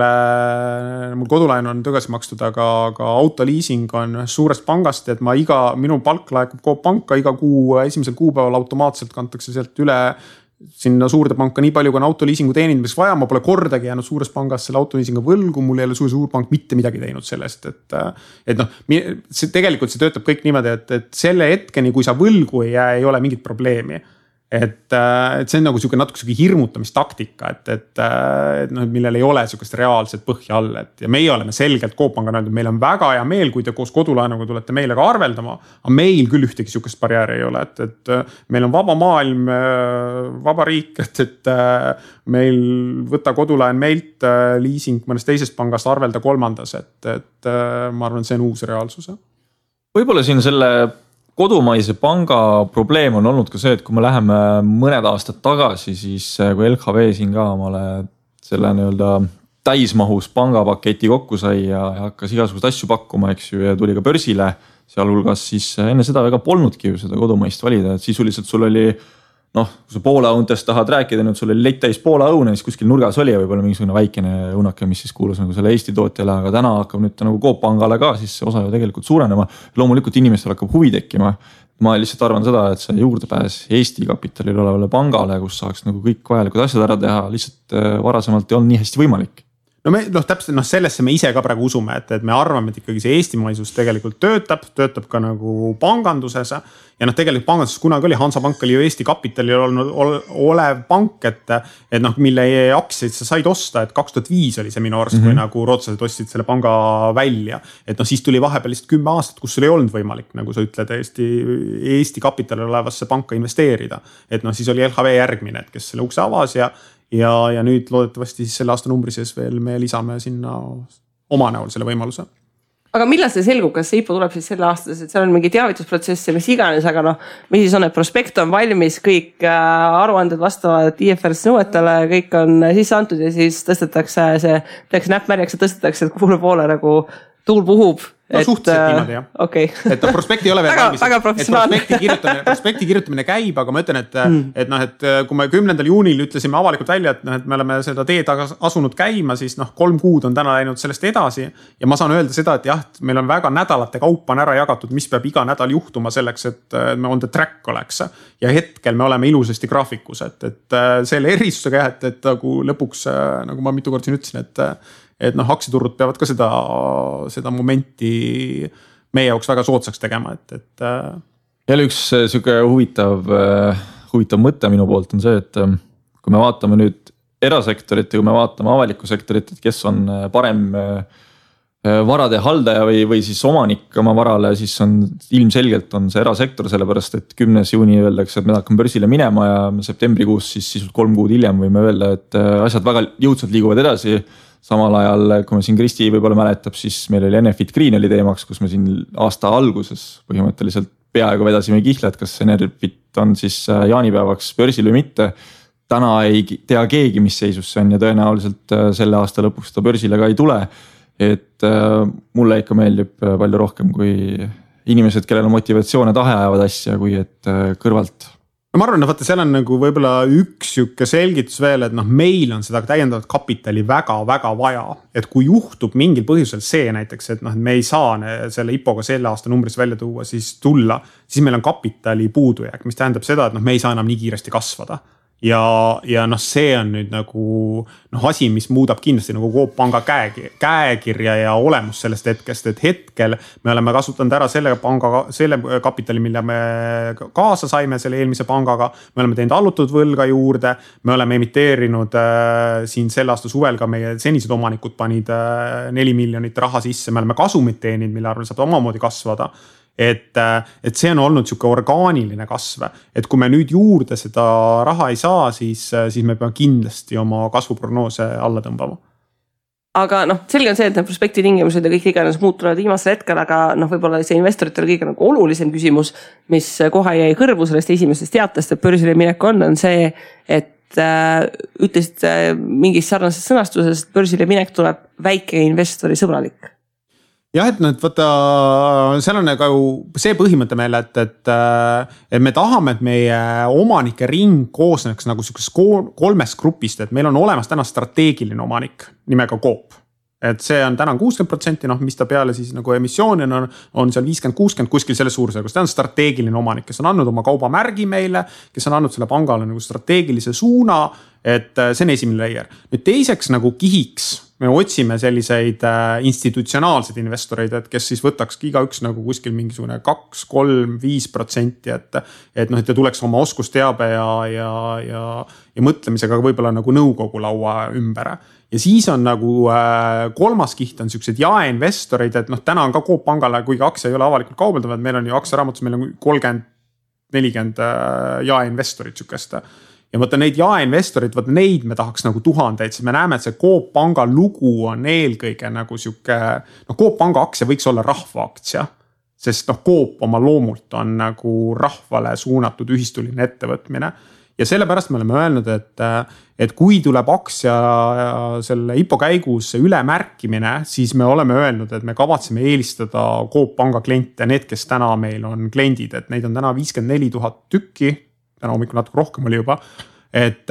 mul kodulaen on tagasi makstud, aga autoliising on suurest pangast, et minu palk laekub Coop Panka iga kuu esimesel kuupäeval automaatselt kantakse sealt üle sinna suurde panka nii palju, kui on autoliisingu teenindamiseks vaja, ma pole kordagi jäänud suures pangas selle autoliisingu võlgu, mul ei ole suur pank mitte midagi teinud sellest, et noh, tegelikult see töötab kõik niimoodi, et selle hetkeni, kui sa võlgu ei jää, ei ole mingit probleemi. Et see on nagu siuke natuke hirmutamistaktika, et noh, millel ei ole siukest reaalset põhja all, et ja meie oleme selgelt Coop Panga öeldud, meil on väga hea meel, kui te koos kodulaenuga tulete meile ka arveldama, aga meil küll ühtegi siukest barjääri ei ole, et meil on vaba maailm, vaba riik, et meil võtta kodulaen meilt, liising mõnest teisest pangast, arvelda kolmandas, et ma arvan, see on uus reaalsus. Võib-olla siin selle kodumaise panga probleem on olnud ka see, et kui me läheme mõned aastad tagasi, siis kui LHV siin ka omale selle nii-öelda täismahus pangapaketi kokku sai ja hakkas igasugust asju pakkuma, eks ju, ja tuli ka börsile, sealhulgas siis enne seda väga polnudki ju seda kodumaist valida, et sisuliselt sul oli noh, kui sa Poola õuntest tahad rääkida, nüüd sul oli lett täis Poola õune, siis kuskil nurgas oli ja võib-olla mingisugune väikene õunake, mis siis kuulus nagu selle Eesti tootjale, aga täna hakkab nüüd nagu Coop Pangale ka, siis see osa ju tegelikult suurenema. Loomulikult inimestel hakkab huvi tekkima. Ma lihtsalt arvan seda, et see juurdepääs Eesti kapitalil olevale pangale, kus saaks nagu kõik vajalikud asjad ära teha, lihtsalt varasemalt ei olnud nii hästi võimalik. No täpselt sellesse me ise ka praegu usume, et me arvame, et ikkagi see eestimaisus tegelikult töötab ka nagu panganduses ja noh, tegelikult panganduses kunagi oli, Hansapank oli ju Eesti kapitalil olev pank, et noh, mille aktsiaid sa said osta, et 2005 oli see minu arust, kui nagu rootslased ostsid selle panga välja, et noh, siis tuli vahepeal lihtsalt 10 aastat, kus sul ei olnud võimalik, nagu sa ütled, Eesti kapitalil olevasse panka investeerida, et noh, siis oli LHV järgmine, et kes selle ukse avas ja nüüd loodetavasti siis selle aasta numbri sees veel me lisame sinna oma näol selle võimaluse. Aga millal see selgub, kas see IPO tuleb siis selle aastas, et seal on mingi teavitusprotsess ja mis iganes, aga noh, mis siis on, et prospekt on valmis, kõik aruanded vastavad IFRS nõuetele, kõik on sisse antud ja siis tõstetakse see, tehakse näppmärjaks ja tõstetakse, et kuule poole nagu tuul puhub. No suhteliselt niimoodi jah. Okay. Et prospekti ei ole veel valmis. Väga professionaalne. Prospekti kirjutamine käib, aga ma ütlen, et kui me 10. juunil ütlesime avalikult välja, et me oleme seda teed asunud käima, siis 3 kuud on täna läinud sellest edasi. Ja ma saan öelda seda, et jah, meil on väga nädalate kaupa on ära jagatud, mis peab iga nädal juhtuma selleks, et me on the track oleks. Ja hetkel me oleme ilusasti graafikus, et selle erisusega jah, et nagu lõpuks, nagu ma mitu kord siin ütlesin, et noh, aktsiaturud peavad ka seda momenti meie jaoks väga soodsaks tegema, et. Jälle üks siuke huvitav mõte minu poolt on see, et kui me vaatame nüüd erasektorit ja kui me vaatame avalikku sektorit, et kes on parem varade haldaja või siis omanik oma varale, siis on ilmselgelt on see erasektor, sellepärast et 10. juuni öeldakse, et me hakkame börsile minema ja septembrikuus siis sisult 3 kuud hiljem võime öelda, et asjad väga jõudsalt liiguvad edasi. Samal ajal, kui me siin Kristi võib-olla mäletab, siis meil oli Enefit Green oli teemaks, kus me siin aasta alguses põhimõtteliselt peaaegu vedasime kihla, et kas Enefit on siis jaanipäevaks börsil või mitte. Täna ei tea keegi, mis seisus see on ja tõenäoliselt selle aasta lõpuks ta börsile ka ei tule. Et mulle ikka meeldib palju rohkem kui inimesed, kellel on motivatsioon ja tahe ajavad asja, kui et kõrvalt. No ma arvan, et seal on nagu võib-olla üks siuke selgitus veel, et meil on seda täiendavat kapitali väga-väga vaja. Et kui juhtub mingil põhjusel see näiteks, et me ei saa selle IPO-ga selle aasta numbris välja tuua, siis tulla, siis meil on kapitali puudujääk, mis tähendab seda, et me ei saa enam nii kiiresti kasvada. ja noh, see on nüüd nagu noh, asi, mis muudab kindlasti nagu Coop Panga käekirja ja olemus sellest hetkest, et hetkel me oleme kasutanud ära selle kapitali, mille me kaasa saime selle eelmise pangaga. Me oleme teinud allutud võlga juurde, me oleme emiteerinud siin selle aasta suvel ka meie senised omanikud panid 4 miljonit raha sisse, me oleme kasumit teeninud, mille arvel saab omamoodi kasvada. Et see on olnud siuke orgaaniline kasv, et kui me nüüd juurde seda raha ei saa, siis me peame kindlasti oma kasvuprognoose alla tõmbama. Aga noh, selge on see, et need prospekti tingimused ja kõik iganes muutuvad viimasel hetkel, aga noh, võib-olla see investoritel kõige nagu olulisem küsimus, mis kohe jäi kõrvu sellest esimesest teatest, et börsile minek on see, et ütlesid mingis sarnases sõnastuses, et börsile minek tuleb väike investori sõbralik. Jah, et nüüd võtta, seal on nagu see põhimõte meil, et me tahame, et meie omanike ring koosneks nagu sellisest 3 grupist, et meil on olemas täna strateegiline omanik nimega Coop. Et see on täna 60%, noh, mis ta peale siis nagu emissiooni on seal 50-60 kuskil selle suurusjärgus. Ta on strateegiline omanik, kes on andnud oma kaubamärgi meile, kes on andnud selle pangale nagu strateegilise suuna, et see on esimene layer. Nüüd teiseks nagu kihiks me otsime selliseid institutsionaalseid investoreid, et kes siis võtakski igaüks nagu kuskil mingisugune 2, 3, 5%, et noh, et ta tuleks oma oskusteabe ja mõtlemisega võib-olla nagu nõukogu laua ümber. Ja siis on nagu kolmas kiht on sellised jaeinvestorid, et noh, täna on ka Coop Pangale, kuigi aktsia ei ole avalikult kaubeldavad, meil on ju aktsiaraamatus, meil on 30-40 jaeinvestorid sükest. Ja võtta neid jaeinvestorid, võtta neid me tahaks nagu tuhandeid, siis me näeme, et see Coop Panga lugu on eelkõige nagu siuke, noh, Coop Panga aktsia võiks olla rahvaaktsia, sest noh, Coop oma loomult on nagu rahvale suunatud ühistuline ettevõtmine. Ja sellepärast me oleme öelnud, et kui tuleb aktsia selle IPO käigus ülemärkimine, siis me oleme öelnud, et me kavatseme eelistada Coop Panga kliente, need, kes täna meil on kliendid, et neid on täna 54 000 tükki, täna hommikul natuke rohkem oli juba, et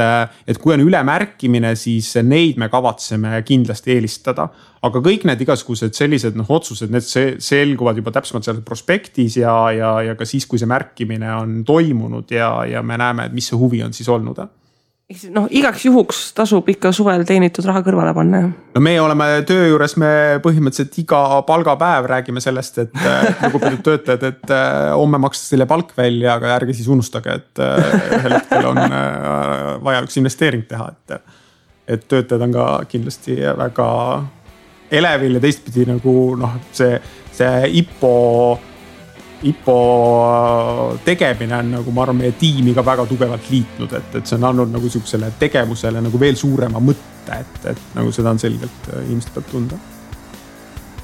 kui on ülemärkimine, siis neid me kavatseme kindlasti eelistada. Aga kõik need igasugused sellised otsused, need selguvad juba täpsemalt seal prospektis ja ka siis, kui see märkimine on toimunud ja me näeme, et mis see huvi on siis olnud. Noh, igaks juhuks tasub ikka suvel teenitud raha kõrvale panna. No me oleme töö juures, me põhimõtteliselt iga palgapäev räägime sellest, et lugupeetud töötajad, et homme makstakse teile palk välja, aga ärge siis unustage, et ühel hetkel on vaja üks investeering teha, et töötajad on ka kindlasti väga elevil ja teistpidi nagu noh, see IPO tegemine on nagu ma arvan meie tiimi ka väga tugevalt liitnud, et see on andnud nagu sellisele tegevusele nagu veel suurema mõtte, et nagu seda on selgelt inimesed peab tunda.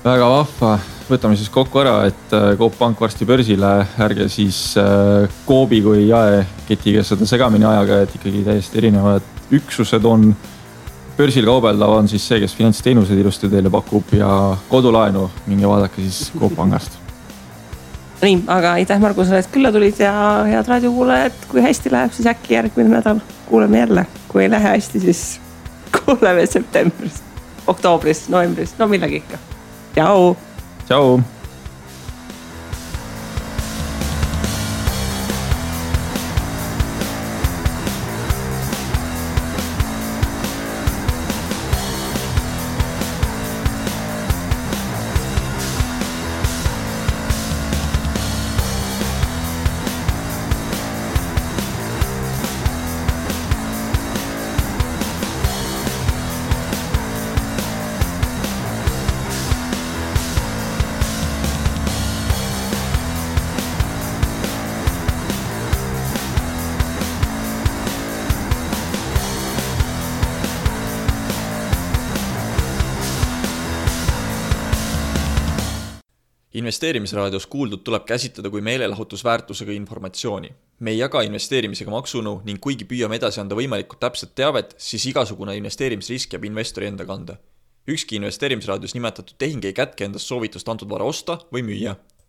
Väga vahva, võtame siis kokku ära, et Coop Pank varsti börsile, ärge siis Coopi kui jaeketiga seda segamini ajaga, et ikkagi täiesti erinevad üksused on. Börsil kaubeldav on siis see, kes finantsteenused ilusti teile pakub ja kodulaenu minge vaadake siis Coop Pangast. Nii, aga aitäh Margusele, et külla tulid ja head raadiokuulajad, kui hästi läheb, siis äkki järgmine nädal kuuleme jälle. Kui ei lähe hästi, siis kuuleme septembris, oktoobris, novembris, no millegi ikka. Tšau! Tšau! Investeerimisraadios kuuldud tuleb käsitleda kui meelelahutusväärtusega informatsiooni. Me ei jaga investeerimisega maksunõu ning kuigi püüame edasi anda võimalikult täpset teavet, siis igasugune investeerimisrisk jääb investori enda kanda. Ükski investeerimisraadios nimetatud tehing ei kätke endast soovitust antud vara osta või müüa.